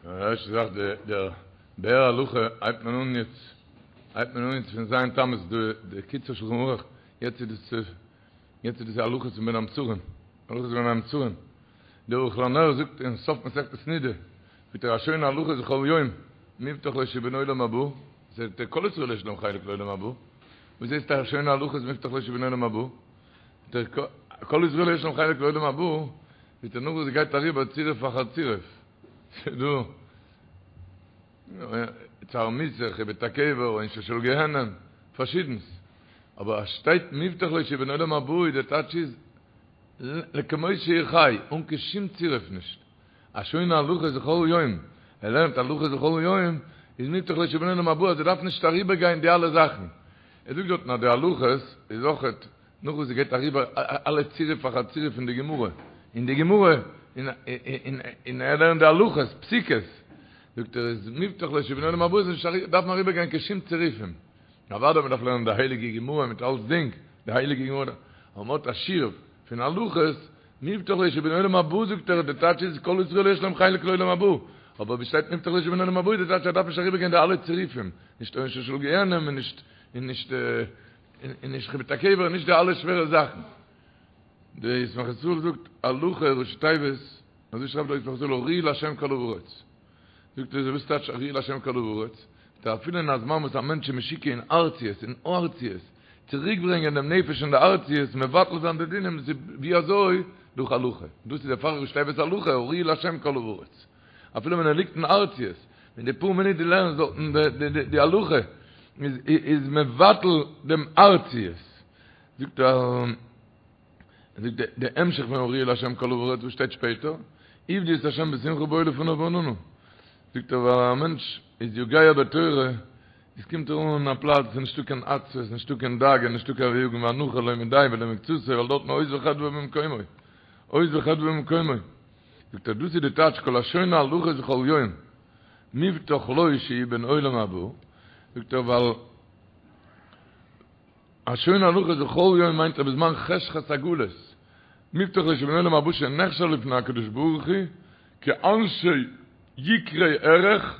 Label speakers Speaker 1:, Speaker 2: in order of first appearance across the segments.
Speaker 1: די ערשטע זאך די דער באר הלכה הייבט מען אן יעצט הייבט מען אן יעצט פון ז' תמוז די די קיצור שלחן ערוך יעצט איז דאס יעצט איז דאס הלכות פון בין המצרים הלכות בין המצרים דער ערוך לנר זאגט אין סוף מסכת נידה זאגט ער השונה הלכות בכל יום מובטח לו שהוא בן עולם הבא זאגט ער כל ישראל יש להם חלק לעולם הבא וואס הייסט השונה הלכות מובטח לו שהוא בן עולם הבא זאגט ער כל ישראל יש להם חלק לעולם הבא זאגט ער נאך וואס גייט אריבער צירוף אחר צירוף ס'דא צער מיתה, חיבוט הקבר, עונשו של גיהנם, פארשידנס. אבער אז שטייט מובטח לו שהוא בן עולם הבא איז די טייטש איז לכמות שהוא חי, אן קיין שום צירוף נישט. השונה הלכות בכל יום, ער לערנט הלכות בכל יום, איז מובטח לו שהוא בן עולם הבא אז ער דארף נישט אריבער גיין די אלע זאכן. ער זאגט דארטן אז די הלכות איז אויכעט נאך וואס ס'גייט אריבער אלע צירוף אחר צירוף פון די גמרא, אין די גמרא, און ער לערנט די הלכות, פסיקות, זאגט ער איז מובטח לו שהוא בן עולם הבא איז נישט דארף מען אריבער גיין קיין שום צירופים, אוודאי מען דארף לערנען די הייליגע גמרא מיט אלצדינג, די הייליגע גמרא, אבער מען האט א שיעור פון הלכות, מובטח לו שהוא בן עולם הבא זאגט ער, די טייטש איז כל ישראל יש להם חלק לעולם הבא, אבער ווי שטייט מובטח לו שהוא בן עולם הבא איז די טייטש ער דארף נישט אריבער גיין די אלע צירופים, נישט עונשו של גיהנם און נישט און נישט און נישט חיבוט הקבר און נישט די אלע שווערע זאכן. די ישמח ישראל זאגט הלכה ראשי תיבות, אזוי שרייבט דער ישמח ישראל הריעו לה' כל הארץ. זאגט ער וואס טייטש הריעו לה' כל הארץ? זאגט ער אפילו אין א זמן וואס א מענטש איז משוקע אין ארציות, אין ארציות, צוריק ברענגען דעם נפש אין די ארציות, מבטל זיין די דינים, דאס איז ווי אזוי? דורך הלכה. דאס איז דערפאר ראשי תיבות הלכה, הריעו לה' כל הארץ. אפילו ווען ער ליגט אין ארציות, אין די פאר מינוט דו לערנסט דארטן די הלכה, איז מבטל דעם ארציות. זאגט ער, זאגט די המשך פון הריעו לה' כל הארץ וואס שטייט שפעטער, עבדו את ה' בשמחה בואו לפניו ברננה. זאגט ער ווייל א מענטש איז יגע בתורה, עס קומט ער אן א פלאץ וואס איז נישטא קיין עצבות, נישטא קיין דאגה, נישטא קיין יגון ואנחה לא מדיה ולא מקצתיה, ווייל דארטן עוז וחדוה במקומו, עוז וחדוה במקומו. זאגט ער דאס איז די טייטש כל השונה הלכות בכל יום מובטח לו שהוא בן עולם הבא, זאגט ער ווייל השונה הלכות בכל יום מיינט ער בזמן חשכת הגלות, מובטח לו שהוא בן עולם הבא שנחשב לפני הקדוש ברוך הוא כאנשי יקרי ערך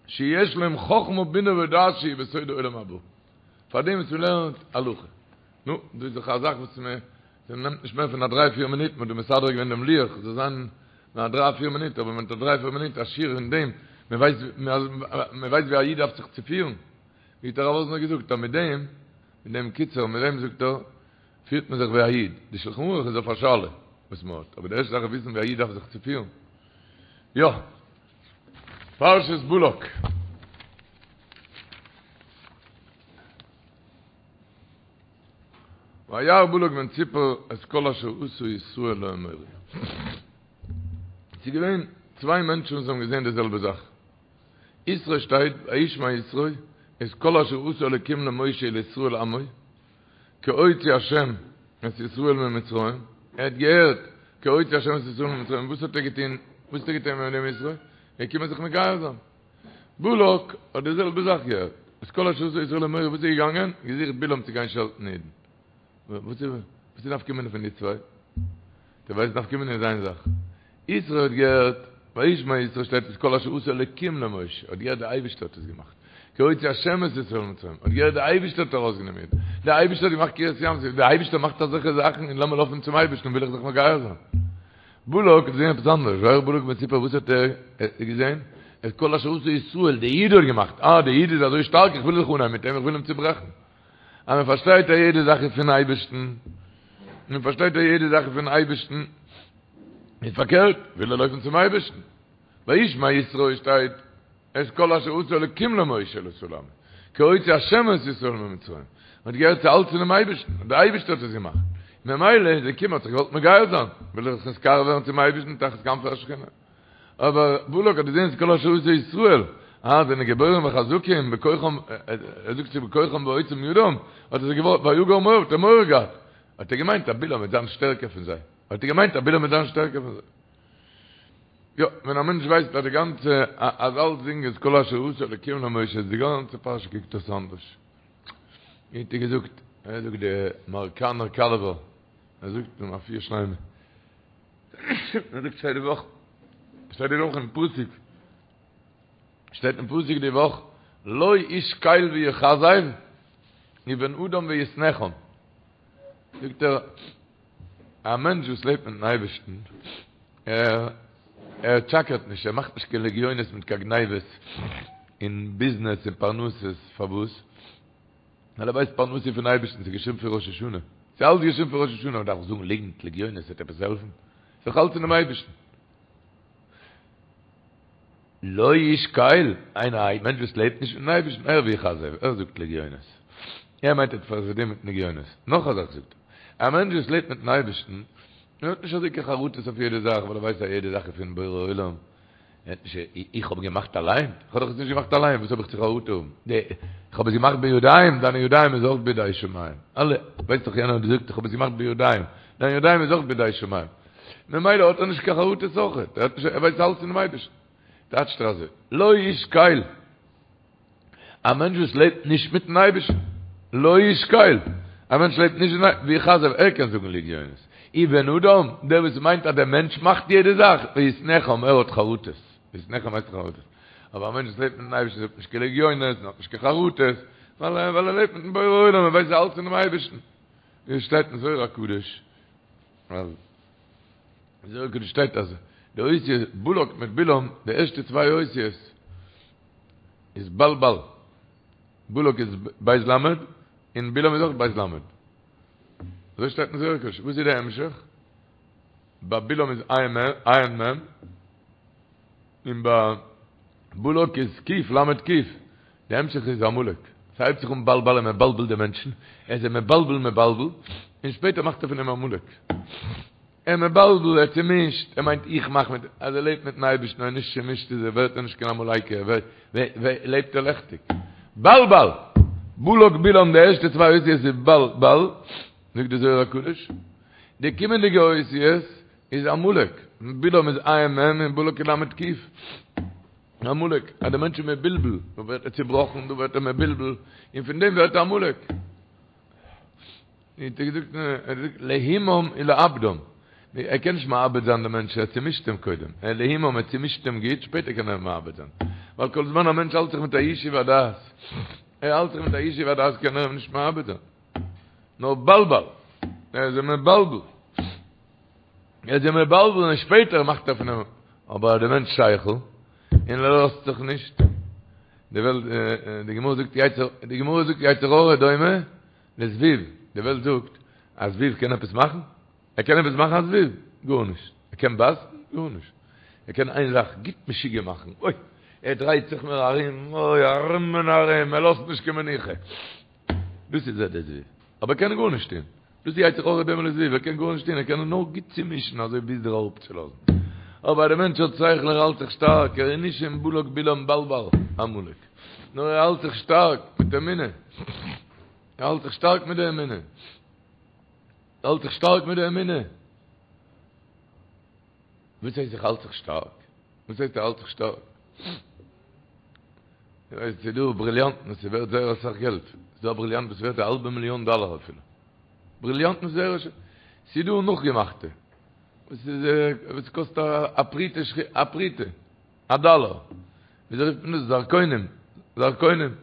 Speaker 1: שיש להם חכמה בינה ודעת שהיא בסוד העולם הבא, פארדעם וואס מען לערנט הלכה. נו, דאס איז דאך א זאך וואס מען נעמט נישט מער פון א דריי פיר מינוט, מען האט דא מסדר געווען דעם לוח, זאל זיין נאר א דריי פיר מינוט, אבער מען האט א דריי פיר מינוט א שיעור אין דעם, מען ווייסט מען ווייסט ווי א איד דארף זיך צו פירן, ווי האט הרב וואזנער געזאגט אז מיט דעם, מיט דעם קיצור, מיט דעם זאגט ער, פירט מען זיך ווי א איד, די שלחן ערוך איז אויף א שאלה וואס מען האט, אבער די ערשטע זאך איז וויסן ווי א איד דארף זיך צו פירן. יא. פרשת בלק. וירא בלק בן ציפור את כל אשר עשה ישראל לאמורי. ס'איז געווען צוויי מענטשן וואס האבן געזען די זעלבע זאך. יתרו שטייט וישמע יתרו את כל אשר עשה אלקים למשה ולישראל עמו כי הוציא השם את ישראל ממצרים. ער האט געהערט כי הוציא השם את ישראל ממצרים. וואס האט ער געטון? וואס האט ער געטון מיט דעם יתרו? ער איז געקומען זיך מגייר זיין. בלק האט די זעלבע זאך געהערט, את כל אשר עשה ישראל לאמורי, וואס איז געגאנגען? געזוכט בלעם צו גיין שעלטן אידן. וואס איז וואס איז נפקא מינה פון די צוויי? דו ווייסט נפקא מינה איז איין זאך. יתרו האט געהערט, וישמע יתרו שטייט את כל אשר עשה אלקים למשה, האט געהערט די אייבערשטער האט עס געמאכט. כי הוציא השם את ישראל ממצרים, האט געהערט די אייבערשטער האט ארויסגענומען אידן. די אייבערשטער האט געמאכט קריעת ים סוף, די אייבערשטער מאכט אזעלכע זאכן און לאמיר לויפן צום אייבערשטן וויל איך זיך מגייר זיין. בלק האט געזען עפעס אנדערש, וירא בלק בן ציפור וואס האט ער געזען? את כל אשר עשה ישראל, די איד האט געמאכט, אה די איד איז אזוי שטארק איך וויל זיך אנהייבן מיט אים, איך וויל אים צוברעכן. אז מען פארשטייט אז יעדע זאך איז פון אייבערשטן, מען פארשטייט אז יעדע זאך איז פון אייבערשטן, איז פארקערט, וויל ער לויפן צום אייבערשטן. וישמע יתרו שטייט את כל אשר עשה אלקים למשה ולישראל עמו, כי הוציא השם את ישראל ממצרים, מען האט געהערט ס'איז אלץ פונעם אייבערשטן, דער אייבערשטער האט עס געמאכט, ממילא איז ער געקומען האט זיך געוואלט מגייר זיין, וויל ער זיך נתקרב ווערן צום אייבערשטן תחת כנפי השכינה. אבער בלק האט געזען את כל אשר עשה ישראל, אה, זענען גיבורים וחזקים בכוחם, ער זאגט צו בכוחם ועוצם ידם, האט ער זיך געוואלט, ויגר מואב, האט ער מורא געהאט, האט ער געמיינט אז בלעם וועט זיין שטערקער פון זיי, האט ער געמיינט אז בלעם וועט זיין שטערקער פון זיי. יא, ווען א מענטש ווייסט אז די גאנצע, אז אלצדינג איז כל אשר עשה אלקים למשה, איז די גאנצע פרשה קוקט אויס אנדערש. ווי האט ער געזאגט, ער זאגט די מאראקאנער קאלעווער, ער זאגט אין רפואה שלימה, ער זאגט שטייט די וואך, שטייט די וואך אין פסוק. שטייט אין פסוק די וואך, לא איש קל ויכזב, ובן אדם ויתנחם. זאגט ער, א מענטש וואס לעבט מיטן אייבערשטן, ער ער טשאקערט נישט, ער מאכט נישט קיין לגיונות מיט קיין גניבות אין ביזנעס און פרנסות, פארוואס? ווייל ער ווייסט פרנסה איז פון אייבערשטן, ס'איז געשריבן פון ראש השנה, ס'איז אלץ געשריבן פון ראש השנה, מען דארף זאגן ליגנט, לגיונות, וועט עפעס העלפן? ס'איז דאך אלץ פונעם אייבערשטן. לא איש קל, איינער א מענטש וואס לעבט נישט מיטן אייבערשטן, ער ויכזב, ער זאגט לגיונות, ער מיינט ער האט פארדינט מיט לגיונות, נאך א זאך זאגט ער, א מענטש וואס לעבט מיטן אייבערשטן, ער האט נישט אזוי קיין חרטות אויף יעדע זאך, ווייל ער ווייסט אז יעדע זאך איז פון בורא עולם, ער האט נישט, איך האב געמאכט אליין? איך האב דאך עס נישט געמאכט אליין, וואס האב איך צו חרטה האבן? איך האב עס געמאכט בידיים, דיינע ידיים איז אויך בידי שמים, אלע, ווייסט דאך יענער האט געזאגט איך האב עס געמאכט בידיים, דיינע ידיים איז אויך בידי שמים. ממילא האט ער נישט קיין חרטות אויכעט, ער האט נישט, ער ווייסט אלץ פונעם אייבערשטן. טייטשט ער אזוי, לא איש קל, א מענטש וואס לעבט נישט מיטן אייבערשטן, לא איש קל, א מענטש לעבט נישט מיטן אייבערשטן, ויכזב, ער קען זאגן לגיונות, ובן אדם, דער וואס מיינט אז דער מענטש מאכט יעדע זאך, ויתנחם, ער האט חרטות, ויתנחם הייסט חרטות, אבער א מענטש וואס לעבט מיטן אייבערשטן זאגט נישט קיין לגיונות, און האט נישט קיין חרטות, ווייל ער לעבט מיטן בורא עולם, ער ווייסט אלץ פונעם אייבערשטן. ווי עס שטייט אין זוהר הקדוש, אז אין זוהר הקדוש שטייט אז די אותיות בלק מיט בלעם, די ערשטע צוויי אותיות איז בל בל, בלק איז בית למד און בלעם איז אויך בית למד, אזוי שטייט אין זוהר הקדוש, וואס איז די המשך? ביי בלעם איז עין מ' און ביי בלק איז ק' למד ק', די המשך איז עמלק, ס'הייבט זיך אן בל בל און מבלבל די מענטשן, ער איז מבלבל מבלבל, און שפעטער מאכט ער פון אים עמלק. ער מבלבל, ער צומישט, ער מיינט איך מאך מיט, אז ער לעבט מיטן אייבערשטן און נישט צומישט איז ער, ווערט ער נישט קיין עמלקי, ער ווערט, לעבט ער לעכטיג. בל בל! בלק בלעם די ערשטע צוויי אותיות איז בל בל, זאגט די זוהר הקדוש, די קומענדיגע אותיות איז עמלק, בלעם איז עין מ' און בלק איז למד ק'. עמלק, אז דער מענטש איז מבולבל, דא ווערט ער צובראכן, דא ווערט ער מבולבל, און פון דעם ווערט ער עמלק. האט ער געזאגט, ער האט געזאגט, להימם ולאבדם. ער קען נישט מאבד זיין דעם מענטש, ער צומישט אים קודם. ער להימם, ער צומישט אים גוט, שפעטער קען ער אים מאבד זיין. ווייל כל זמן א מענטש האלט זיך מיט א ישוב הדעת, ער האלט זיך מיט א ישוב הדעת קען ער אים נישט מאבד זיין. נאר בלבל, ער איז אים מבלבל. ער איז אים מבלבל און שפעטער מאכט ער פון אים, אבער אז דער מענטש שכל און ער לאזט זיך נישט, די וועלט, די גמרא זאגט יצר, די גמרא זאגט יצר הרע דומה לזבוב, די וועלט זאגט א זבוב קען עפעס מאכן? ער קען עפעס מאכן א זבוב? גארנישט. ער קען בייסן? גארנישט. ער קען איין זאך, גוט משוגע מאכן, אוי, ער דרייט זיך מיר ארום, אוי, ארום און ארום, ער לאזט נישט קיין מנוחה. דאס איז ער דער זבוב. אבער ער קען גארנישט טון. דאס איז יצר הרע דומה לזבוב, ער קען גארנישט טון, ער קען נאר גוט צומישן אזוי ביז דיר אראפצולאזן. אבער דער מענטש האט שכל, ער האלט זיך שטארק, ער איז נישט אין בלק בלעם בלבל עמלק, נאר ער האלט זיך שטארק מיט אמונה, ער האלט זיך שטארק מיט די אמונה, ער האלט זיך שטארק מיט די אמונה. וואס הייסט איך האלט זיך שטארק? וואס הייסט ער האלט זיך שטארק? איך ווייס ס'איז דא בריליאנטן וואס איז ווערט זייער אסאך געלט, ס'איז דא א בריליאנט וואס איז ווערט א האלבע מיליאן דאלער אפילו, בריליאנטן איז זייער ס'איז דא נאכגעמאכטע וואס איז וואס קאסט א פרוטה א פרוטה א דאלער, וויאזוי רופט מען דאס? זרקונים, זרקונים,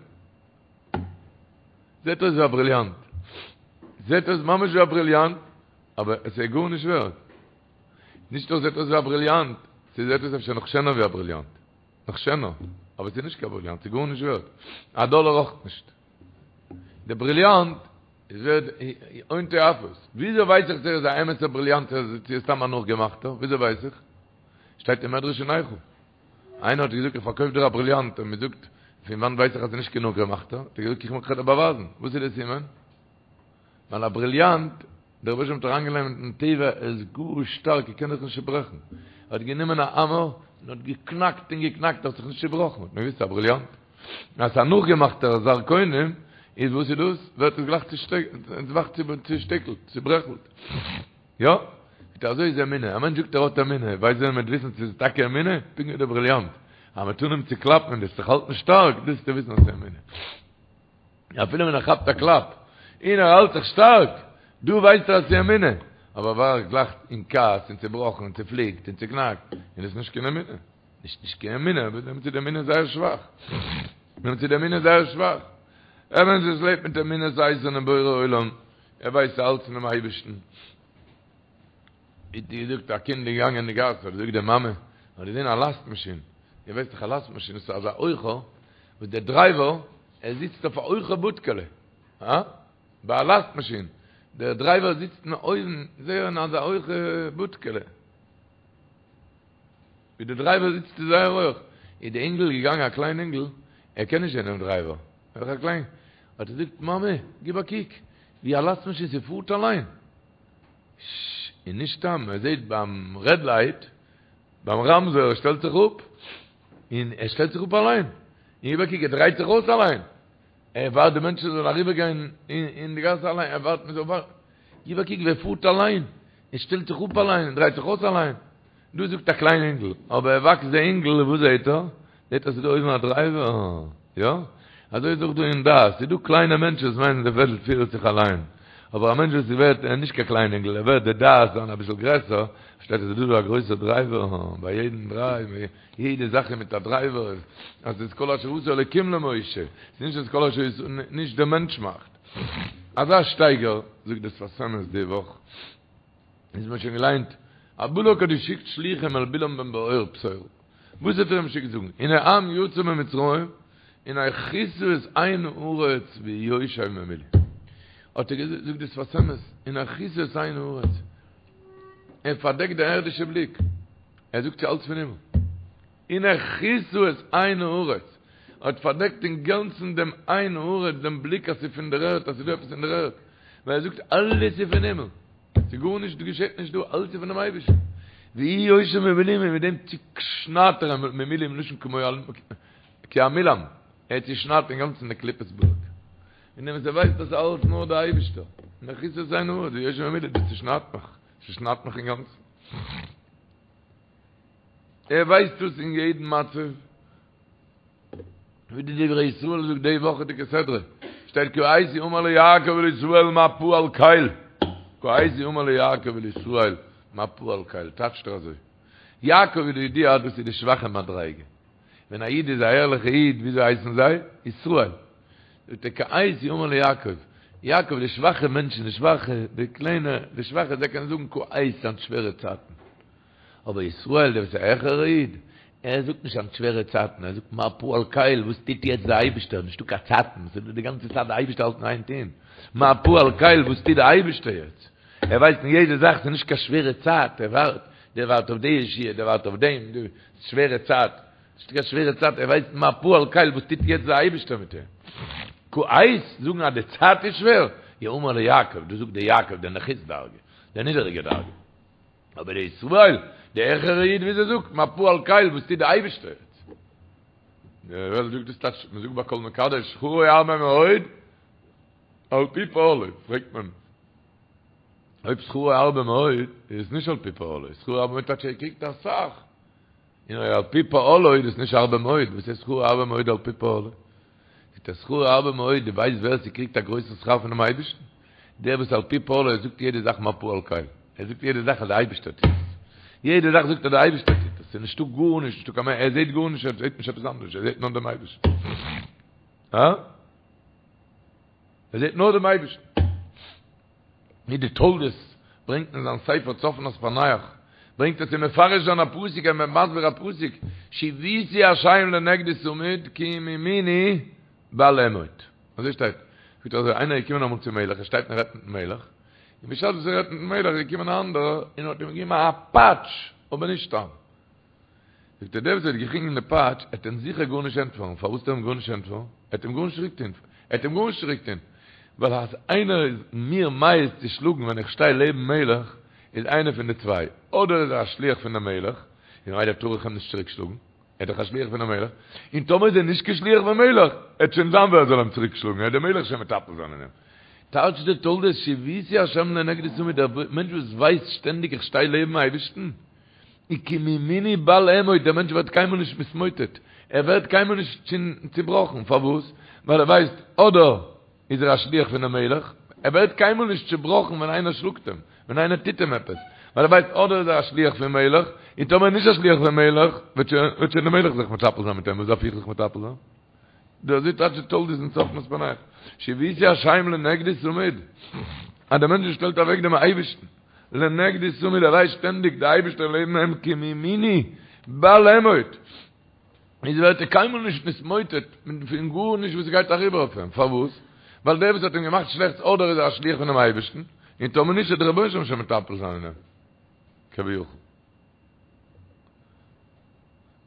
Speaker 1: זעט אויס ווי א בריליאנט, זעט אויס ממש ווי א בריליאנט, אבער עס איז גארנישט ווערט. נישט נאר זעט אויס ווי א בריליאנט, ס'זעט אויס אפשר נאך שענער ווי א בריליאנט. נאך שענער. אבער ס'איז נישט קיין בריליאנט, ס'איז גארנישט ווערט. א דאלער אויך נישט. די בריליאנט איז ווערט הון תועפות. וויאזוי ווייס איך צו ער איז א אמת'ער בריליאנט צו ער איז סתם א נאכגעמאכטער? וויאזוי ווייס איך? שטייט אין מדרש אין איכה. איינער האט געזאגט איך פארקויף דיר א בריליאנט און מ'זאגט פון וואנט ווייס איך אז ס'איז נישט קיין נאכגעמאכטער? האט ער געזאגט איך וועל דיר באווייזן. וואס איז די סימן? ווייל א בריליאנט, דער רבוש"ע האט אריינגעלייגט אין טבע, ער איז גאר שטארק, ער קען זיך נישט צוברעכן. ער האט גענומען א האמער און האט געקנאקט און געקנאקט, ער האט זיך נישט צובראכן, האט מען געוואוסט ס'איז א בריליאנט. אז ס'איז א נאכגעמאכטער זרקונים, איז וואס איז דאס? ווערט עס גלייך צושטיקלט, צוברעכלט. יא, מיט אזוי איז אמונה. א מענטש זאגט ער האט אמונה, ווייסט ווען מ'וועט וויסן צו ס'איז טאקע אמונה? פונקט ווי דער בריליאנט. אז מ'וועט אנהויבן צו קלאפן און דו וועסט זיך האלטן שטארק, דאס וועסטו וויסן אז ס'איז אמונה. אפילו ווען ער כאפט א קלאפ און ער האלט זיך שטארק, דא ווייסט ער אז ס'איז אמונה, אבער ווערט גלייך אין כעס און צובראכן און צופליקט און צוקנאקט, און עס איז נישט קיין אמונה. נישט נישט קיין אמונה, אבער דעמאלטס איז די אמונה זייער שוואך. דעמאלטס איז די אמונה זייער שוואך. א מענטש וואס לעבט מיט אמונת איתן אין בורא עולם, ער ווייסט אלץ פונעם אייבערשטן. ווי געזאגט, א קינד איז געגאנגען אין די גאס, האט געזאגט די מאמע, האט געזען א לאסט מאשין, איר ווייסט דאך א לאסט מאשין איז אזא הויכע, וואס דער דרייווער, ער זיצט אויף א הויכע בודקעלע, הא? ביי א לאסט מאשין, דער דרייווער זיצט אין אויבן, זייער אין אזא הויכע בודקעלע. ווי דער דרייווער זיצט איז זייער הויך, איז די אינגל געגאנגען א קליין אינגל, ער קען נישט זען דעם דרייווער, ער איז דאך א קליין, האט ער געזאגט, מאמע, גיב א קוק, ווי א לאסט מאשין ס'פארט אליין, ש, און נישט סתם, ער זעט ביים רעד לייט, ביים רמזור, ער שטעלט זיך אפ, און ער שטעלט זיך אפ אליין, און גיב א קוק, ער דרייט זיך אויס אליין, ער ווארט די מענטשן זאלן אריבער גיין אין די גאס אליין, ער ווארט מען זאל ווארטן, גיב א קוק ווי ער פארט אליין, ער שטעלט זיך אפ אליין, ער דרייט זיך אויס אליין. דא זאגט א קליין אינגל, אבער ער וואקסט די אינגל און וואס זעהט ער? זעהט אז ס'איז דא אויבן א דרייווער, יא? אזוי איז אויך דא אין דעת, ס'איז דא קליינע מענטשן וואס מיינען די וועלט פירט זיך אליין, אבער א מענטש וואס ווערט, ער איז נישט קיין קליין אינגל, ער ווערט די דעת זיין אביסל גרעסער, פארשטייט ער ס'איז דא דא א גרויסער דרייווער, ביי יעדן דרייוו, יעדע זאך איז מיט א דרייווער, אז ס'איז כל אשר עשה אלוקים למשה, ס'איז נישט אז כל אשר, נישט דער מענטש מאכט. אזא שטייגער, זאגט דער שפת אמת די וואך. איז מיר שוין געליינט, אז בלק האט געשיקט שלוחים אל בלעם בן בעור פתורה, וואס האט ער אים געשיקט זאגן, הנה עם יצא ממצרים, הנה כסה את עין הארץ והוא יושב ממולי. האט ער געזאגט, זאגט די שפת אמת, הנה כסה את עין הארץ, ער פארדעקט די ערדישע בליק, ער זאגט ס'איז אלץ פון הימל. הנה כסה את עין הארץ, האט פארדעקט אינגאנצן דעם עין הארץ, דעם בליק אז ס'איז פון דער ערד, אז ס'איז דא עפעס אין דער ערד, ווייל ער זאגט אלעס איז פון הימל, ס'איז גארנישט געשעט נישט דא, אלעס איז פונעם אייבערשטן. והוא יושב ממולי, מיט דעם צושניידט ער אים ממולי מלשון כמו כי המילם, ער צושניידט אינגאנצן די קליפת בלק. און דעם וואס ער ווייסט אז ס'איז אלעס נאר דער אייבערשטער, הנה כסה את עין הארץ, והוא יושב ממולי, דאס צושניידט מיך, צושניידט מיך אינגאנצן. ער ווייסט דאס אין יעדן מצב, ווי די דברי ישראל זאגט די וואכעדיגע סדרה, שטייט כעת יאמר ליעקב ולישראל מה פעל קל, כעת יאמר ליעקב ולישראל מה פעל קל, טייטשט ער אזוי, יעקב איז די ידיעה אז דאס איז די שוואכע מדריגה, ווען א איד איז א ערליכע איד וויאזוי הייסן זיי? ישראל. זאגט ער כעת יאמר ליעקב, יעקב די שוואכע מענטשן, די שוואכע, די קליינע, די שוואכע זיי קענען זאגן כעת היינט שווערע צייטן. אבער ישראל דער וואס איז א העכערע איד, ער זאגט נישט היינט שווערע צייטן, ער זאגט מה פעל קל, וואס טוט יעצט דער אייבישטער, נישטא קיין צייטן, ס'איז דא די גאנצע צייט די אייבישטער האלט אין איין טון, מה פעל קל, וואס טוט דער אייבישטער יעצט, ער ווייסט אין יעדע זאך, ס'איז נישט קיין שווערע צייט, ער ווארט, דער ווארט אויף די ישועה, דער ווארט אויף דעם, די שווערע צייט, נישטא קיין שווערע צייט, ער ווייסט מה פעל קל, וואס טוט יעצט דער אייבישטער מיט אים. כעת, זאגן אז די צייט איז שווער, יאמר ליעקב, דאס זאגט דער יעקב, דער נחות דרגה, דער נידעריגע דרגה. אבער דער ישראל, דער העכערער איד וויאזוי זאגט, מה פעל קל, וואס טוט דער אייבערשטער יעצט? די וועלט זאגט דאס טייטש, מען זאגט ביי כל מקדש, שכרו הרבה מאוד, על פי פעלו, פרעגט מען, אויב שכרו הרבה מאוד, איז עס נישט על פי פעלו, שכרו הרבה מאוד טייטש ער קריגט אסאך. און אויב על פי פעלו איז דאס נישט הרבה מאוד, וואס איז שכרו הרבה מאוד על פי פעלו? זאגט ער שכרו הרבה מאוד, דו ווייסט ווער ס'קריגט א גרויסן שכר פונעם אייבערשטן? דער וואס על פי פעלו ער זאגט יעדע זאך מה פעל קל, ער זאגט יעדע זאך אז דער אייבערשטער טוט עס, יעדע זאך זאגט ער דער אייבערשטער טוט עס, ס'איז נישטא גארנישט, נישטא קיין מער, ער זעט גארנישט, ער זעט נישט עפעס אנדערש, ער זעט נאר דעם אייבערשטן. הא? ער זעט נאר דעם אייבערשטן. ווי די תולדות ברענגט אין זיין ספר צפנת פענח, ברענגט ער צו מפרש זיין א פסוק, ער איז מסביר א פסוק, שויתי השם לנגדי תמיד כי מימיני בל אמוט. אזוי שטייט. זאגט ער אזוי, איינער איז געקומען אמאל צום מלך, ער שטייט און רעדט מיטן מלך, און בשעת וואס ער רעדט מיטן מלך איז געקומען א אנדערער און האט אים געגעבן א פאטש, אבער נישט סתם. זאגט ער, דער וואס האט געקריגן די פאטש, עט אים זיכער גארנישט ענטפערן, פארוואס עט ער אים גארנישט ענטפערן? ער עט אים גארנישט צוריק טון, ער עט אים גארנישט צוריק טון, ווייל אז איינער איז מיר מעז צו שלאגן ווען איך שטיי לעבן מלך, איז איינער פון די צוויי, אדער איז ער א שליח פון דעם מלך, און ממילא טאר איך אים נישט צוריק שלאגן, ער איז דאך א שליח פונעם מלך, און טאמער איז ער נישט קיין שליח פון מלך, עט שוין זיין ווער זאל אים צוריק שלאגן, עט דער מלך שוין מטפל זיין אין אים. טייטשט דער תולדות שויתי השם לנגדי תמיד, דער מענטש וואס ווייסט שטענדיג איך שטיי לעבן אייבערשטן, כי מימיני בל אמוט, דער מענטש ווערט קיינמאל נישט מתמוטט, ער ווערט קיינמאל נישט צובראכן, פארוואס? ווייל ער ווייסט, אדער איז ער א שליח פונעם מלך, ער ווערט קיינמאל נישט צובראכן ווען איינער שלאגט אים, ווען איינער טוט אים עפעס, ווייל. ווייל ער ווייסט אדער איז ער א שליח פון מלך, און טאמער נישט א שליח פון מלך, וועט שוין וועט שוין דער מלך זיך מטפל זיין מיט אים, וואס דארף איך זיך מטפל זיין? דא אזוי טייטשט די תולדות אין צפנת פענח, שויתי השם לנגדי תמיד, אז דער מענטש שטעלט אוועק דעם אייבערשטן לנגדי תמיד, ער ווייסט שטענדיג דער אייבערשטער לעבן אים כי מימיני בל אמוט, איז ווערט ער קיינמאל נישט נתמוטט פון גארנישט וואס גייט אריבער אויף אים, פארוואס? ווייל דער וואס האט אים געמאכט שלעכטס אדער איז ער א שליח פונעם אייבערשטן, און טאמער נישט וועט דער רבונו של עולם שוין מטפל זיין אין אים, כביכול.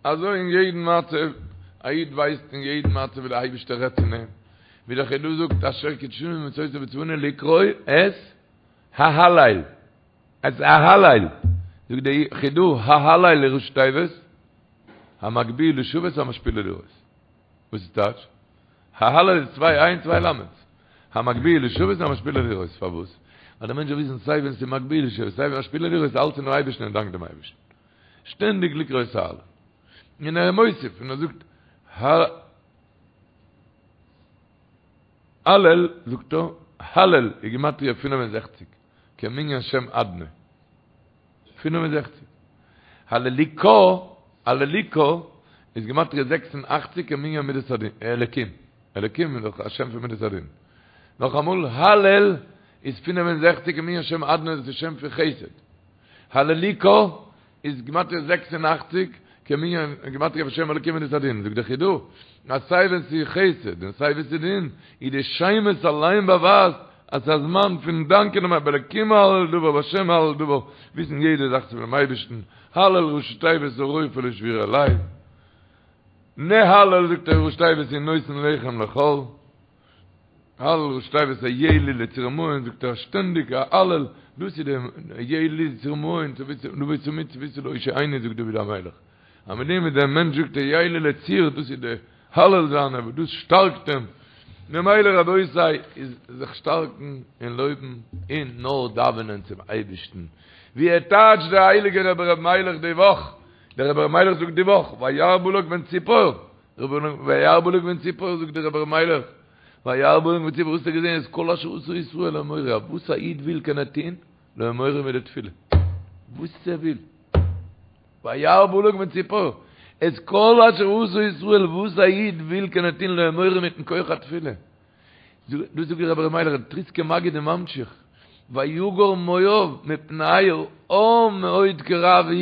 Speaker 1: אזוי אין יעדן מצב, א איד ווייסט אין יעדן מצב ווי דער אייבערשטער רעדט צו אים, ווי דער חידא זאגט אשר קדשנו במצותיו וצונו לקרוא את ההלל, את ההלל, זאגט דער חידא ההלל איז ראשי תיבות, המגביה לשבת המשפיל לראות. וואס איז טייטש? ההלל איז צוויי עין צוויי למד'ס. המגביה לשבת המשפיל לראות. פארוואס? ווייל דער מענטש זאל וויסן סיי ווען ס'איז מגביה לשבת סיי ווען משפיל לראות אלץ אינעם אייבערשטן און דאנק דעם אייבערשטן. שטענדיג לקרוא את ההלל. און ער איז מוסיף און ער זאגט הלל זאגט ער, הלל איז גימטריא 65, כמנין שם אדנ"י. 65. הללוקה, הללוקה, איז גימטריא 86 כמנין מידת הדין, אלקים. אלקים איז דאך א שם פון מידת הדין. נאכאמאל, הלל איז 65 כמנין שם אדנ"י, דאס איז שם פון חסד. הללוקה איז גימטריא 86 כמנין גימטריא פון שם אלקים מידת הדין. זאגט דער חידא, אז סיי ווען ס'איז חסד און סיי ווען ס'איז דין, איז די שמות אליין באווייזט אז ס'איז א זמן פון דאנקען דעם באלקים אהלל דבר בהשם אהלל דבר, וויסן יעדע זאך איז פונעם אייבערשטן, הלל ראשי תיבות הרופא לשבורי לב, נהלל זאגט ער ראשי תיבות הוא נותן לחם לכל. הלל ראשי תיבות היה לי לצור מעון זאגט ער שטענדיג א הלל דאס איז די היה לי לצור מעון לבוא תמיד צויתי להושיעני זאגט דוד המלך אז מיט דעם וואס דער מענטש זאגט היה לי לצור דאס איז די הלל זיינע וואס דאס שטארקט אים ממילא רבותי איז זיך שטארקן און לויבן און נאר דאווענען צום אייבערשטן ווי ער טייטשט דער הייליגער רבי ר' מיילעך די וואך דער רבי ר' מיילעך זאגט די וואך וירא בלק בן ציפור וירא בלק בן ציפור זאגט דער רבי ר' מיילעך וירא בלק בן ציפור וואס האט ער געזען את כל אשר עשה ישראל לאמורי וואס א איד וויל קען ער טוהן לאמורי מיט די תפילה וואס ער וויל וירא בלק בן ציפור את כל אשר עשה ישראל וואס א איד וויל קען ער טוהן לאמורי מיטן כח התפילה דאס זאגט דער רבי ר' מיילעך דער טריסקער מגיד איז ממשיך, ויגר מואב מפני העם מאוד כי רב הוא,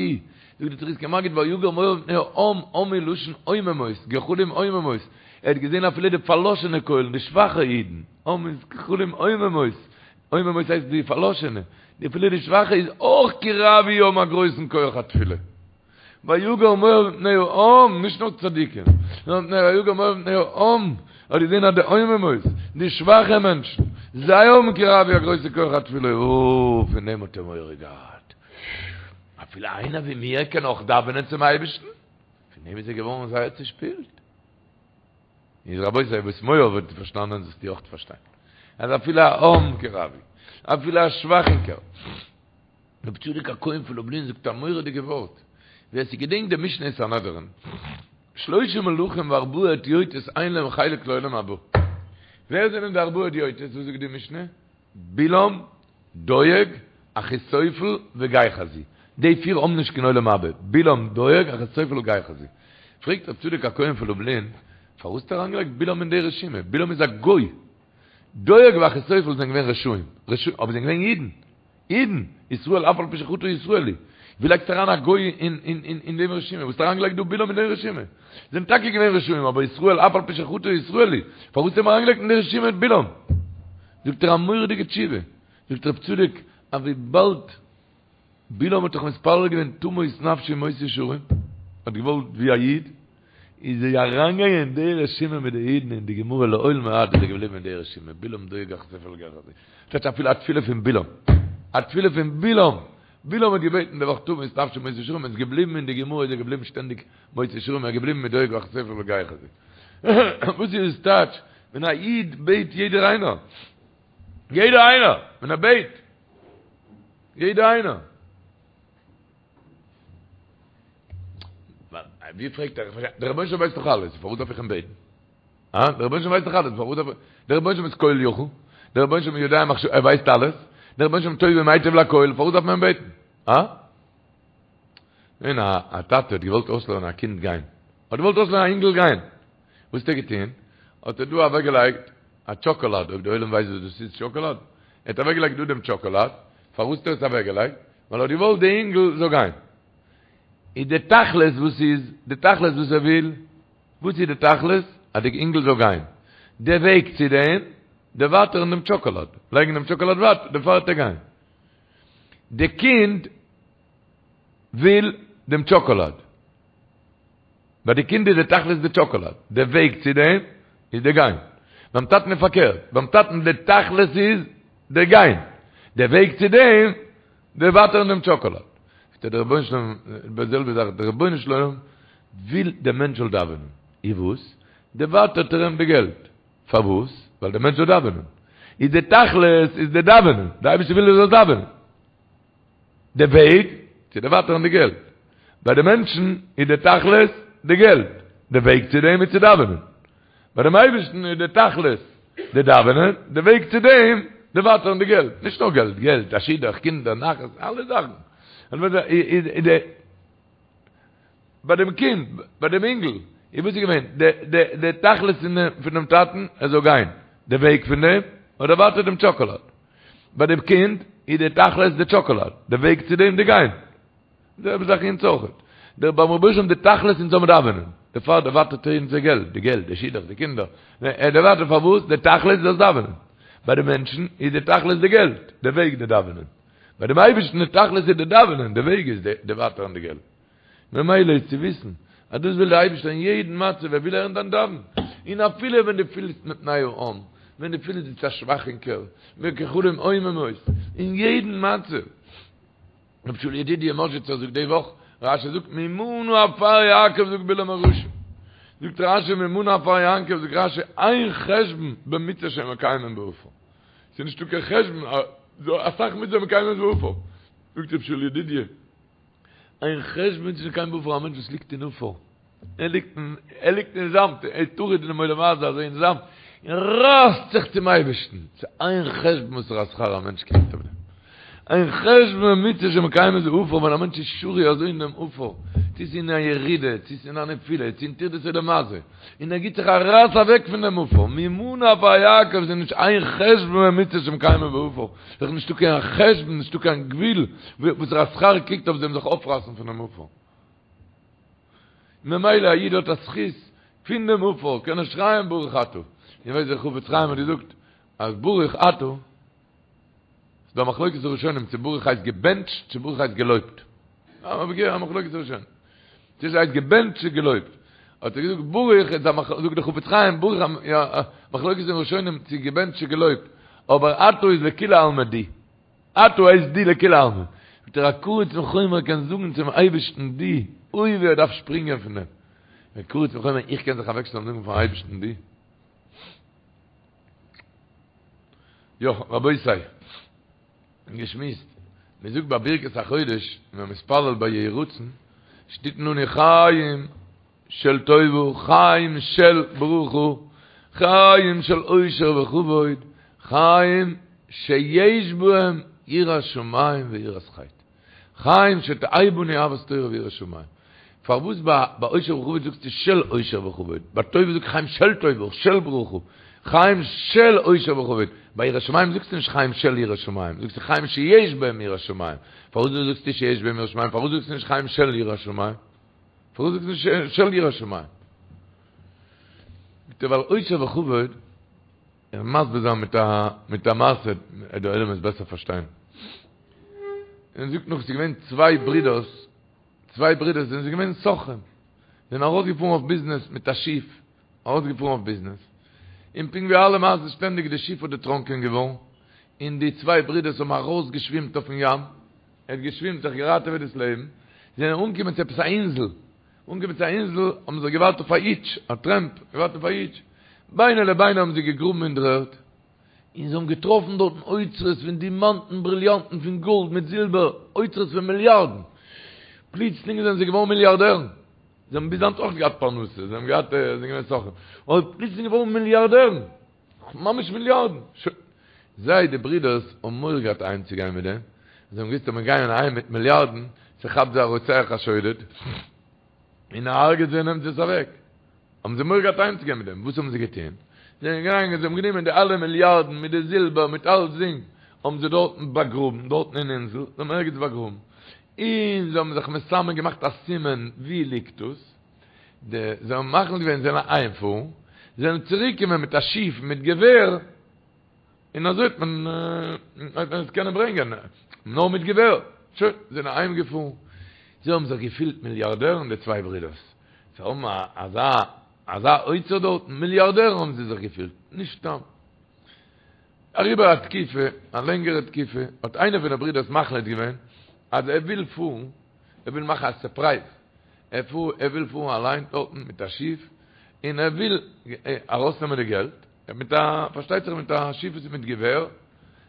Speaker 1: זאגט דער טריסקער מגיד ויגר מואב מפני העם, עם איז לשון עוממות, גחלים עוממות, ער האט געזען אפילו די פארלאשענע קוילן, די שוואכע אידן, עם איז גחלים עוממות, עוממות הייסט די פארלאשענע, אפילו די שוואכע איז אויך כי רב הוא האבן א גרויסן כח התפילה. ויגר מואב מפני העם, נישט נאר צדיקים, נאר מפני ויגר מואב מפני העם, האט געזען אז די עוממות, די שוואכע מענטשן, זיי האבן כי רב הוא א גרויסע כח התפילה, אוי, פון דעם האט ער מורא געהאט. אפילו איינער ווי מיר קען אויך דאווענען צום אייבערשטן? פון דעם איז ער געווארן זייער צושפילט. איז רבותי, וואס מואב האט פארשטאנען זאלסטו אויך פארשטיין. אז אפילו א עם כי רב הוא, אפילו א שוואכינקער, רבי צדוק הכהן פון לובלין זאגט א מורא'דיגע ווארט, ווער ס'געדענקט די משנה אין סנהדרין, שלושה מלכים וארבעה הדיוטות אין להם חלק לעולם הבא. ווער זענען די ארבעה הדיוטות? וואס זאגט די משנה? בלעם, דואג, אחיתופל וגיחזי. די פיר האבן נישט קיין עולם הבא, בלעם, דואג, אחיתופל וגיחזי. פרעגט רבי צדוק הכהן פון לובלין, פארוואס האט ער אריינגעלייגט בלעם אין די רשימה? בלעם איז א גוי. דואג ואחיתופל זענען געווען רשעים, אבער זענען געווען אידן. אידן! ישראל אף על פי שחטא ישראל הוא. ווי לייגסטו אריין א גוי אין דעם רשימה? וואס האסטו אריינגעלייגט דא בלעם אין דעם רשימה? זענען טאקע געווען רשעים אבער ישראל אף על פי שחטא ישראל הוא. פארוואס האט מען אריינגעלייגט אין די רשימה בלעם? זאגט ער א מורא'דיגע תשובה. זאגט רב צדוק אז וויבאלד בלעם האט דאך מתפלל געווען תמות נפשי מות ישרים, האט געוואלט ווי א איד, איז ער אריינגעגאנגען אין די רשימה מיט די אידן אין די גמרא לעולמי עד איז ער געבליבן אין די רשימה, בלעם דואג אחיתופל גיחזי, שטייט אפילו א תפילה פון בלעם, א תפילה פון בלעם, בלעם האט געבעטן די וואך תמות נפשי מות ישרים, איז געבליבן אין די גמרא איז ער געבליבן שטענדיג מות ישרים, ער איז געבליבן מיט דואג אחיתופל וגיחזי. וואס איז עס טייטש ווען א איד בעט יעדער איינער, יעדער איינער, ווען ער בעט, יעדער איינער. ווי פרעגט ער, דער רבונו של עולם ווייסט דאך אלעס, פארוואס דארף איך אים בעטן? אה? דער רבונו של עולם ווייסט דאך אלעס, פארוואס דארף איך? דער רבונו של עולם איז כל יכול, דער רבונו של עולם יודע מחשבות, ער ווייסט אלעס, דער רבונו של עולם טוב ומייטיב לכל, פארוואס דארף מען אים בעטן? אה? געווען א טאטע האט געוואלט אויסלערנען א קינד גיין. האט געוואלט אויסלערנען א אינגל גיין. וואס האט ער געטון? האט ער דא אוועקגעלייגט א טשאקאלאד, אויב די עולם ווייסט וואס דאס איז טשאקאלאד. ער האט אוועקגעלייגט דא דעם טשאקאלאד. פארוואס האט ער עס אוועקגעלייגט? ווייל ער האט געוואלט די אינגל זאל גיין. איז די תכלית וואס איז? די תכלית וואס ער וויל? וואס איז די תכלית? אז די אינגל זאל גיין. די וועג צו דעם, דערווייטערן דעם טשאקאלאד. לייגן דעם טשאקאלאד ווייט, דערפאר וועט ער גיין. די קינד וויל דעם טשאקאלאד. ביי די קינד איז די תכלית די טשאקאלאד. די וועג צו דעם איז די גיין. ביים טאטן איז פארקערט. ביים טאטן די תכלית איז די גיין. די וועג צו דעם, דערווייטערן דעם טשאקאלאד. זאגט ער דער רבונו של עולם, די זעלבע זאך, דער רבונו של עולם וויל דער מענטש זאל דאווענען. איז וואס? דערווייטערט ער אים די געלט. פארוואס? ווייל דער מענטש זאל דאווענען. איז די תכלית איז די דאווענען. די אייבערשטער וויל ער זאל דאווענען. די וועג צו דערווייטערן די געלט. ביי די מענטשן איז די תכלית די געלט. די וועג צו דעם איז צו דאווענען. ביי דעם אייבערשטן איז די תכלית די דאווענען, די וועג צו דעם דערווייטערן די געלט. נישט נאר געלט, געלט, א שידוך, קינדער, נחת, אלע זאכן. ביי דעם קינד, ביי דעם אינגל, איז וואס איז געווען? די די די תכלית פון דעם טאטן, ער זאל גיין. די וועג פון דעם, האט דערווייטערט דעם טשאקאלאד. ביי דעם קינד איז די תכלית די טשאקאלאד, די וועג צו דעם די גיין. די זעלבע זאך אונז אויכעט. דער ביים רבונו של עולם די תכלית אונז זאל מען דאווענען. דערפאר דערווייטערט ער אונז די געלט, די געלט, די שידוך, די קינדער. ער דערווייטערט פארוואס? די תכלית זאלסט דאווענען. ביי די מענטשן איז די תכלית די געלט, די וועג די דאווענען. ביי דעם אייבערשטן די תכלית איז די דאווענען, די וועג איז די דערווייטערן די געלט. ממילא איז צו וויסן אז דאס וויל דער אייבערשטער אין יעדן מצב, ער וויל הערן דיין דאווענען. און אפילו ווען דו פילסט מפני העם, ווען דו פילסט ביסט א שוואכינקער, גחלים עוממות, אין יעדן מצב. רבי שאול ידידיה מאזשיצער זאגט די וואך, רשי זאגט ממה נא עפר יעקב זאגט בלעם הרשע, זאגט רשי ממה נא עפר יעקב זאגט רשי אין חשבון במצוה שמקיימים בעפר, ס'איז נישטא קיין חשבון אסאך מצוה מקיימים בעפר, זאגט רבי שאול ידידיה אין חשבון במצוה שמקיימים בעפר א מענטש וואס ליגט אין עפר, ער ליגט אין, ער ליגט אין זאמד, ער איז טרוד אינעם עולם הזה אזוי אין זאמד, און רייסט זיך צום אייבערשטן, ס'איז אין חשבון וואסערע שכר א מענטש קריגט אויף דעם. אין חשבון במצוה שמקיימים בעפר, ווען א מענטש איז שרוי אזוי אין דעם עפר, צו ס'איז אין א ירידה, צו ס'איז אין א נפילה, צו אין טרדות עולם הזה, און ער גיט זיך א רייס אוועק פון דעם עפר, ממה נא עפר יעקב, ס'איז נישט אין חשבון במצוה שמקיימים בעפר, ס'איז נישטא קיין חשבון, נישטא קיין גבול, וואסערע שכר קריגט אויף דעם זיך אויפרייסן פונעם עפר. ממילא א איד האט א זכות פון דעם עפר קען ער שרייען ברוך אתה, איר ווייסט דער חפץ חיים האט געזאגט אז ברוך אתה, ס'איז דא א מחלוקת הראשונים צו ברוך הייסט געבענטשט צו ברוך הייסט געלויבט, א מחלוקת הראשונים צו עס הייסט געבענטשט צו געלויבט, האט ער געזאגט ברוך איז א זאגט דער חפץ חיים ברוך א מחלוקת הראשונים צו געבענטשט צו געלויבט, אבער אתה איז לכולי עלמא דו. אתה הייסט דו לכולי עלמא. זאגט ער א קרוץ מחומר קען זאגן צום אייבערשטן דו, אוי ווי ער דארף שפרינגען פון דעם. א קרוץ מחומר איך קען זיך אוועקשטעלן זאגן פארן אייבערשטן דו. יא רבותי, געשמועסט, מען זאגט ביי ברכת החודש, ווען מען מתפלל ביי יהי רצון, שתתן לנו חיים של טובה, חיים של ברכה, חיים של עושר וכבוד, חיים שיש בהם יראת שמים ויראת חטא. חיים שתהא בנו אהבת תורה ויראת שמים. פארוואס ביי עושר וכבוד זאגסטו של עושר וכבוד? ביי טובה זאגסטו חיים של טובה, של ברכה, חיים של עושר וכבוד. ביי יראת שמים זאגסטו נישט חיים של יראת שמים, זאגסטו חיים שיש בהם יראת שמים. פארוואס זאגסטו שיש בהם יראת שמים? פארוואס זאגסטו נישט חיים של יראת שמים? פארוואס זאגסטו נישט של יראת שמים? זאגט ער ווייל עושר וכבוד, איך וועל מסביר זיין מיט א מיט א מעשה, דער עולם וועט בעסער פארשטיין. און זאגט נאך ס'איז געווען צוויי ברידערס, צוויי ברידערס זענען זיי געווען סוחרים, זענען ארויסגעפארן אויף ביזנעס מיט א שיף, ארויסגעפארן אויף ביזנעס, און פונקט ווי אלע מעשות שטענדיג די שיף האט דערטראנקען געווארן, און די צוויי ברידערס האבן ארויסגעשווימט אויפן ים, ער האט געשווימט זיך געראטעוועט דאס לעבן, זיי זענען אנגעקומען צו עפעס א אינזל, אנגעקומען צו א אינזל האבן זיי געווארט אויף א היטש, א טרעמפ, געווארט אויף א היטש, ביני לביני האבן זיי געגראבן אין דר'ערד, און זיי האבן געטראפן דארטן אוצרות פון דימאנטן, בריליאנטן, פון גאלד מיט זילבער, אוצרות פון מיליארדן, פלוצלינג זענען זיי געווארן מיליארדערן, זיי האבן ביז היינט אויך געהאט פרנסה, זיי האבן געהאט, זיי זענען געווען סוחרים, אבער פלוצלינג געווארן מיליארדערן. ממש מיליארדן! שוין. זיי, די ברידערס, האבן מורא געהאט אהיימצוגיין מיט דעם. זיי האבן געוואוסט אז מיר גייען אהיים מיט מיליארדן, ס'כאפט זיי א רוצח א שודד, און ער הרג'עט זיי און נעמט עס אוועק. האבן זיי מורא געהאט אהיימצוגיין מיט דעם, וואס האבן זיי געטון? זיי זענען געגאנגען, זיי האבן גענומען די אלע מיליארדן מיט די זילבער מיט אלצדינג, האבן זיי דארטן באגראבן, דארטן אין אינזל, זיי האבן ערגעץ באגראבן, און זיי האבן זיך מסמן געמאכט א סימן וואו ליגט דאס, די, זיי האבן מחליט געווען זיי זאלן אהיימפארן, זיי זאלן צוריקקומען מיט א שיף מיט געווער, און אזוי האט מען האט מען עס קענען ברענגען נאר מיט געווער. שוין, זיי זענען אהיים געפארן, זיי האבן זיך געפילט מיליארדערן די צוויי ברידערס, זיי האבן אזא אזא אוצר דארטן, מיליארדערן האבן זיי זיך געפילט, נישט סתם. אריבער א תקופה, א לענגערע תקופה, האט איינער פון די ברידערס מחליט געווען אז ער וויל פארן, ער וויל מאכן א סורפרייז, ער פאר ער וויל פארן אליין דארטן מיט א שיף, און ער וויל ארויסנעמען די געלט, מיט א, פארשטייט זיך מיט א שיף וואס איז מיט געווער,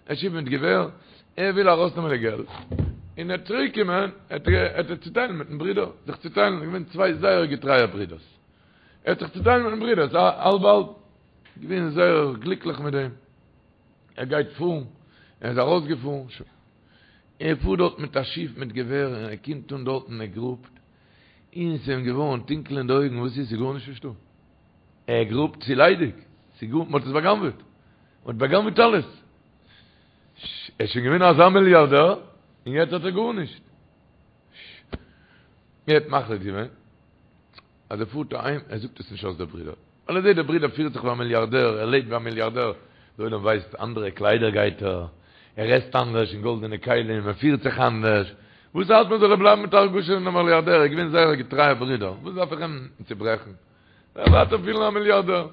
Speaker 1: א שיף מיט געווער, ער וויל ארויסנעמען די געלט, און ער צוריק קומען, ער ער צוטיילן מיטן ברודער, זיך צוטיילן, געווען צוויי זייער געטרייע ברודערס, ער האט זיך צוטיילן מיטן ברודער, האלב האלב, געווען זייער גליקליך מיט דעם, ער גייט פארן, ער איז ארויסגעפארן, שוין, ער פארט דארט מיט א שיף מיט געווער, און ער קומט אן דארטן, ער גראבט, און ס'איז אים געווארן טונקל אין די אויגן, וואס איז, ס'איז גארנישט נישטא. ער גראבט ס'איז ליידיג, ס'איז גאר, מ'האט עס בא'גנב'עט, מ'האט בא'גנב'עט אלעס, ער איז שוין געווען אזא מיליארדער, און יעצט האט ער גארנישט. ער האט מחליט געווען אז ער פארט אהיים, ער זאגט עס נישט אויס די ברודער, ווייל ער זעט דער ברודער פירט זיך ווי א מיליארדער, ער לעבט ווי א מיליארדער, דער עולם ווייסט, אנדערע קליידער גייט ער, ער עסט אנדערש אין גאלדענע כלים, ער פירט זיך אנדערש, וואס ארט מיר זאל ער בלייבן מיט א הרגשה פון א מיליארדער, ער איז געווען זייער א געטרייער ברודער, וואס דארף איך אים צוברעכן? ער ווייטער פילן א מיליארדער.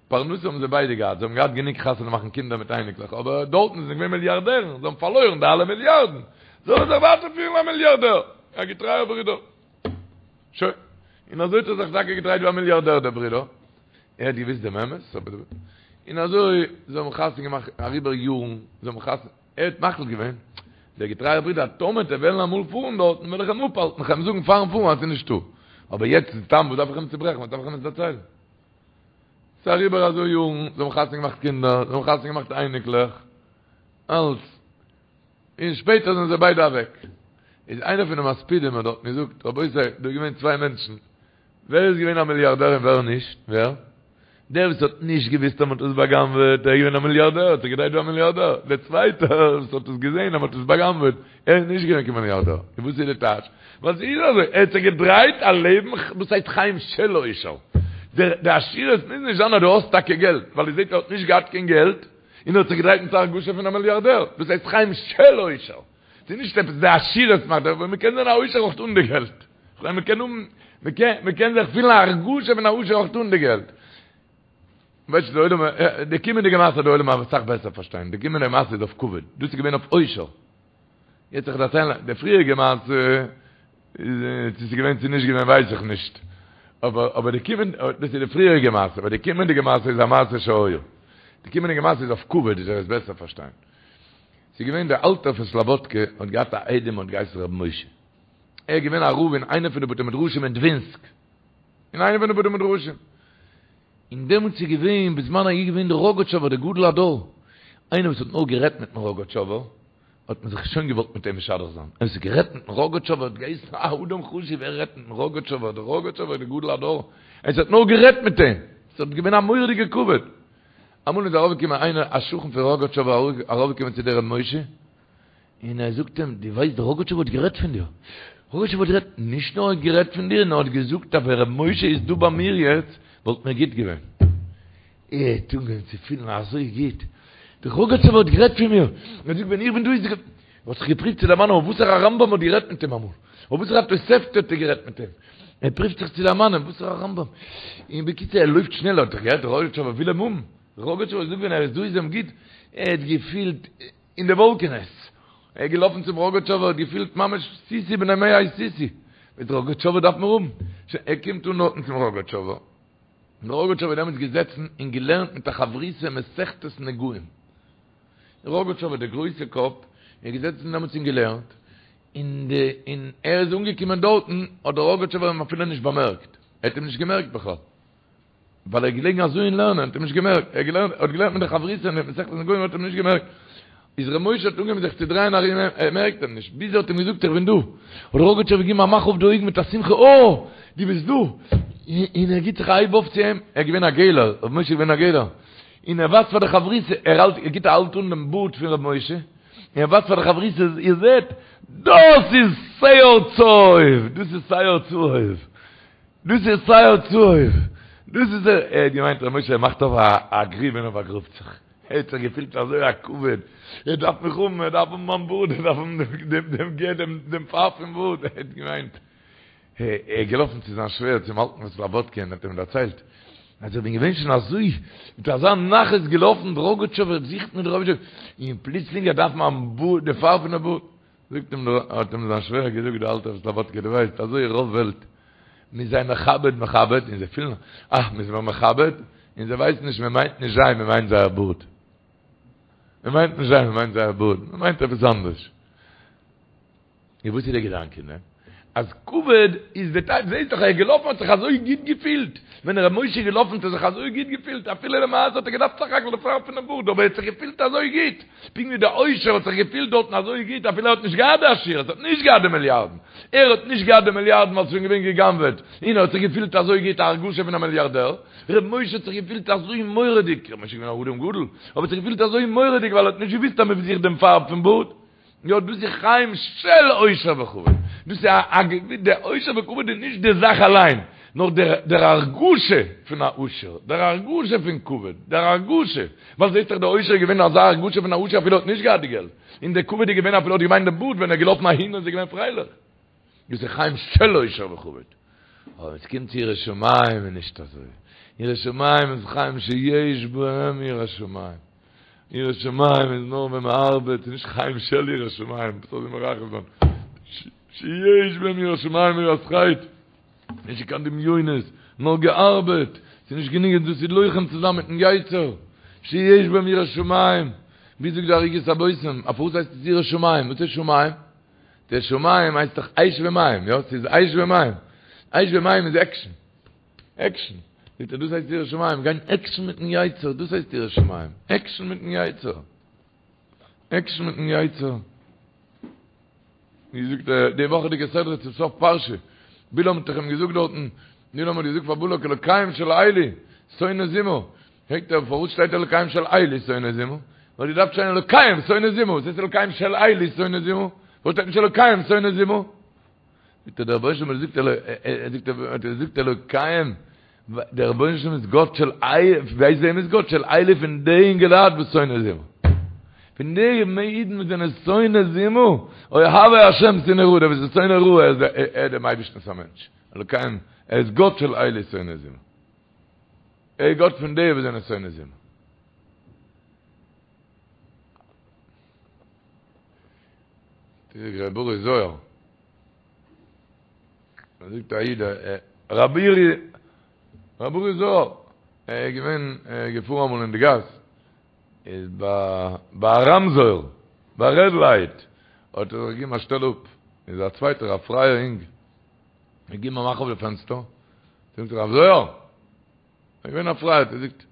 Speaker 1: פרנסה האבן זיי ביידע געהאט, זיי האבן געהאט גענוג חתונה מאכן קינדער מיט אייניקלעך, אבער דארטן זענען זיי געווען מיליארדערן, זיי האבן פארלוירן די אלע מיליארדן, זאל ער זיך ווייטער פילן א מיליארדער, א געטרייער ברודער. שוין. און אזוי האט ער זיך טאקע געדרייט ווי א מיליארדער דער ברודער. ער האט געוואוסט דעם אמת, אבער און אזוי זיי האבן חתונה געמאכט אריבער יארן, זיי האבן חתונה. ער האט מחליט געווען, דער געטרייער ברודער, אז טאמער וועט ער וועלן אמאל פארן דארטן, וועל איך אים אפהאלטן, איך וועל אים זאגן פארן פארן אז ס'איז נישטא. אבער יעצט איז סתם, וואס דארף איך אים צוברעכן, וואס דארף איך אים עס דערציילן? ס'איז אריבער אזוי יארן, זיי האבן חתונה געמאכט קינדער, זיי האבן חתונה געמאכט אייניקלעך, אלץ. און שפעטער זענען זיי ביידע אוועק. איז איינער פון די מספידים האט דארטן געזאגט, רבותי, דא איז געווען צוויי מענטשן, ווער איז געווען א מיליארדער און ווער נישט? ווער? דער וואס האט נישט געוואוסט אז מען האט עס בא'גנב'עט, ער איז געווען א מיליארדער, האט זיך געדרייט ווי א מיליארדער. דער צווייטער וואס האט עס געזען אז מען האט עס בא'גנב'עט, ער איז נישט געווען קיין מיליארדער. און וואס איז די טייטש? ווייל ס'איז אזוי, ער האט זיך געדרייט א לעבן וואס הייסט חיים של עושר. די עשירות מוז נישט זיין אז דו האסט טאקע געלט, ווייל איר זעט ער האט נישט געהאט קיין געלט, און ער האט זיך געדרייט מיט א הרגשה פון א מיליארדער. דאס הייסט חיים של עושר. ס'איז נישט עפעס די עשירות מאכט, אבער מ'קען זיין א עושר אויך אן די געלט. כ'מיין מ'קען האבן, מ'קען, מ'קען זיך פילן א הרגשה פון א עושר אויך אן די געלט. ווייסט די עולם, די קומענדיגע מעשה די עולם וועט אסאך בעסער פארשטיין, די קומענדיגע מעשה איז אויף כבוד, דאס איז געווען אויף עושר. יעצט איך דערציילן די פריעריגע מעשה, צו ס'איז געווען צו נישט געווען ווייס איך נישט. אבער אבער די קומענ, דאס איז די פריעריגע מעשה, אבער די קומענדיגע מעשה איז א מעשה שהיה. די קומענדיגע מעשה איז אויף כבוד, איז ער עס בעסער פארשטיין. ס'איז געווען דער אלטער פון סלאבאדקע האט געהאט א איידעם האט געהייסן רבי משה. ער איז געווען א רב אין איינע פון די בתי מדרשים אין דווינסק. אין איינע פון די בתי מדרשים. און דעמאלטס איז געווען, בזמן ההוא געווען דער ראגאטשאווער דער גדול הדור. איינער וואס האט נאר גערעדט מיטן ראגאטשאווער, האט מען זיך שוין געוואלט מיט אים משדך זיין. ער האט גערעדט מיטן ראגאטשאווער האט געהייסן א אדם חשוב, ער רעדט מיטן ראגאטשאווער, דער ראגאטשאווער דער גדול הדור. ער האט נאר גערעדט מיט אים. ס'האט געווען א מורא'דיגע כבוד. אמאל איז ארויפגעקומען איינער א שכן פון ראגאטשאווער ארויפגעקומען צו דער ר' משה, און ער זאגט אים, דו ווייסט דער ראגאטשאווער האט גערעדט פון דיר, ראגאטשאווער האט גערעדט, נישט נאר ער האט גערעדט פון דיר, נאר ער האט געזאגט אז ווען ר' משה איז דא ביי מיר יעצט, וואלט מיר גוט געווען. ער האט אנגעהויבן צו פילן אזוי גוט, דער ראגאטשאווער האט גערעדט פון מיר, ער זאגט ווען איך בין דא איז ער האט זיך געפריווט צו דערמאנען אויף וואסערע רמב"ם האט גערעדט מיט אים אמאל, אויף וואסערע תוספתא האט ער גערעדט מיט אים, ער פריווט זיך צו דערמאנען וואסערע רמב"ם, און בקיצור ער לויפט שנעל, האט ער געהערט דער ראגאטשאווער וויל אים האבן, דער ראגאטשאווער זאגט ווען ער איז דא איז אים גוט, ער האט געפילט אין די וואלקענעס, ער איז געלאפן צום ראגאטשאווער האט געפילט ממש סוסי בני מעי סוסי, דער ראגאטשאווער דארף מיר האבן, שוין ער קומט אן דארטן צום ראגאטשאווער, דער ראגאטשאווער איז דעמאלטס געזעצן און געלערנט מיט א חברותא מסכת נגעים. ראגאטשאווער דער גרויסע קאפ איז געזעצן דעמאלטס און געלערנט, און די און ער איז אנגעקומען דארטן האט דער ראגאטשאווער אים אפילו נישט באמערקט, ער האט אים נישט געמערקט בכלל, ווייל ער איז געלעגן אזוי אין לערנען, האט אים נישט געמערקט, ער האט געלערנט, האט געלערנט מיט די חברותא אין מסכת נגעים האט אים נישט געמערקט. איז ר' משה האט אנגעהויבן זיך צו דרייען ארום אים, ער מערקט אים נישט, ביז ער האט אים געזאגט איך בין דא, האט דער ראגאטשאווער געגעבן א מאך אויף די אויגן מיט א שמחה אה! דו ביסט דא! און ער גיט זיך א הייב אויף צו אים, ער איז געווען א געלער, ר' משה איז געווען א געלער, און ער ווייזט פאר די חברותא, ער האלט, ער גיט א האלט אן דעם בארד פון ר' משה, און ער ווייזט פאר די חברותא, איר זעט, דאס איז שער צהוב! דאס איז שער צהוב! דאס איז שער צהוב! דאס איז ער! ער האט געמיינט ר' משה מאכט אויף א גריב און ער באגראבט זיך. ער האט זיך געפילט אזוי א כבוד, ער דארף מיך האבן, ער דארף האבן מיין בארד, ער דארף האבן דעם דעם דעם פארב פון בארד, ער האט געמיינט, ער איז געלאפן צו זיין שווער צום אלטן פון סלאבאדקע און האט אים דערציילט, אז איך בין געווען שוין אזוי מיט אזא נחת געלאפן, דער ראגאטשאווער זוכט מיר דער ראגאטשאווער, און פלוצלינג ער דארף מיין בארד, די פארב פון די בארד, זאגט אים דער, האט אים זיין שווער געזאגט דער אלטער פון סלאבאדקע, דו ווייסט אזוי רוב וועלט, מ'איז זיי מכבד מכבד, און זיי פילן אה, מ'איז מיר מכבד, און זיי ווייסן נישט מען מיינט נישט זיי, מען מיינט זייער בארד. מען מיינט נישט זיי, מען מיינט זייער בארד, מען מיינט עפעס אנדערש. און וואס איז דער געדאנק אין דעם? אז כבוד איז די טייטש, זעהסט דאך ער איז געלאפן האט זיך אזוי גוט געפילט, ווען ר' משה איז געלאפן האט ער זיך אזוי גוט געפילט, אפילו למעשה האט ער געדארפט סך הכל די פארב פונעם בארד, אבער ער האט זיך געפילט אזוי גוט, פונקט ווי דער עושר האט זיך געפילט דארטן אזוי גוט אפילו ער האט נישט געהאט די עשירות, האט נישט געהאט די מיליארדן, ער האט נישט געהאט די מיליארדן ווייל ס'איז שוין געווען גע'גנב'עט, און ער האט זיך געפילט אזוי גוט, א הרגשה פון א מיליארדער, ר' משה האט זיך געפילט אזוי מורא'דיג, ר' משה איז געווען א אדם גדול, אבער האט זיך געפילט אזוי מורא'דיג ווייל ער האט נישט געוואוסט אז מ'זוכט דעם פארב פון בארד. יא דאס איז חיים של עושר וכבוד, דאס איז א די עושר וכבוד איז נישט די זאך אליין, נאר דער הרגשה פון א עושר, דער הרגשה פון כבוד, דער הרגשה, ווייל זעסט דאך דער עושר איז געווען אזא הרגשה פון א עושר אפילו ער האט נישט געהאט די געלט, און דער כבוד איז געווען אפילו ער האט געמיינט די בארד ווען ער איז געלאפן אהין איז ער געווען פרייליך. דאס איז חיים של עושר וכבוד. אבער ווען עס קומט צו יראת שמים איז נישט אזוי. יראת שמים איז חיים שיש בהם יראת שמים. יראת שמים איז נאר ווען מען ארבעט, ס'איז נישט חיים של יראת שמים, וואס זאל איך מרחם זיין? שיש בהם יראת שמים יראת חטא. נישט קיין דמיונות, נאר געארבעט. ס'איז נישט גענוג דאס איז לוחם צו זיין מיטן יצר. שיש בהם יראת שמים. ווי זאגט די ערוגת הבושם, אויף וואס הייסט עס יראת שמים? וואס איז שמים? דער שמים הייסט דאך אש ומים, יא? ס'איז אש ומים. אש ומים איז עקשן. עקשן. זאגט ער, דאס הייסט יראת שמים, גיין עקשן מיטן יצר, דאס הייסט יראת שמים. עקשן מיטן יצר. עקשן מיטן יצר. ווי זאגט ער, די וואכעדיגע סדרה צום סוף פרשה, בלעם האט דאך אים געזאגט דארטן, בלעם האט געזאגט פאר בלק אלוקיהם של אלו, שונא זימה. פרעגט ער פארוואס שטייט אלוקיהם של אלו שונא זימה? וואלט געדארפט שטיין אלוקיהם שונא זימה, וואס הייסט אלוקיהם של אלו שונא זימה? פארוואס שטייט נישט אלוקיהם שונא זימה? זאגט ער דער רבונו של עולם זאגט ער זאגט אלוקיהם דער רבונו של עולם איז גאט של אלו, ווייסט וועם איז גאט? של אלו פון די אינגעלייט וואס שונא זימה. פון די אידן וואס זענען שונא זימה, אוהבי השם שנאו רע, דער וואס איז שונא רע ער איז דעם אייבערשטנ'ס א מענטש, אלוקיהם ער איז גאט של אלו שונא זימה. ער איז גאט פון די וואס זענען שונא זימה. תראה ר' אורי זוהר. מען זאגט א איד רבי אורי רבי אורי זוהר ער איז געווען געפארן אמאל אין די גאס איז ביי ביי א רמזור ביי א רעד לייט האט ער זיך געגעבן א שטעל אפ איז א צווייטער א פרייער אינג געגעבן א מאך אויף די פענסטער זאגט רב זוהר, ער איז געווען א פרייער, ער זאגט,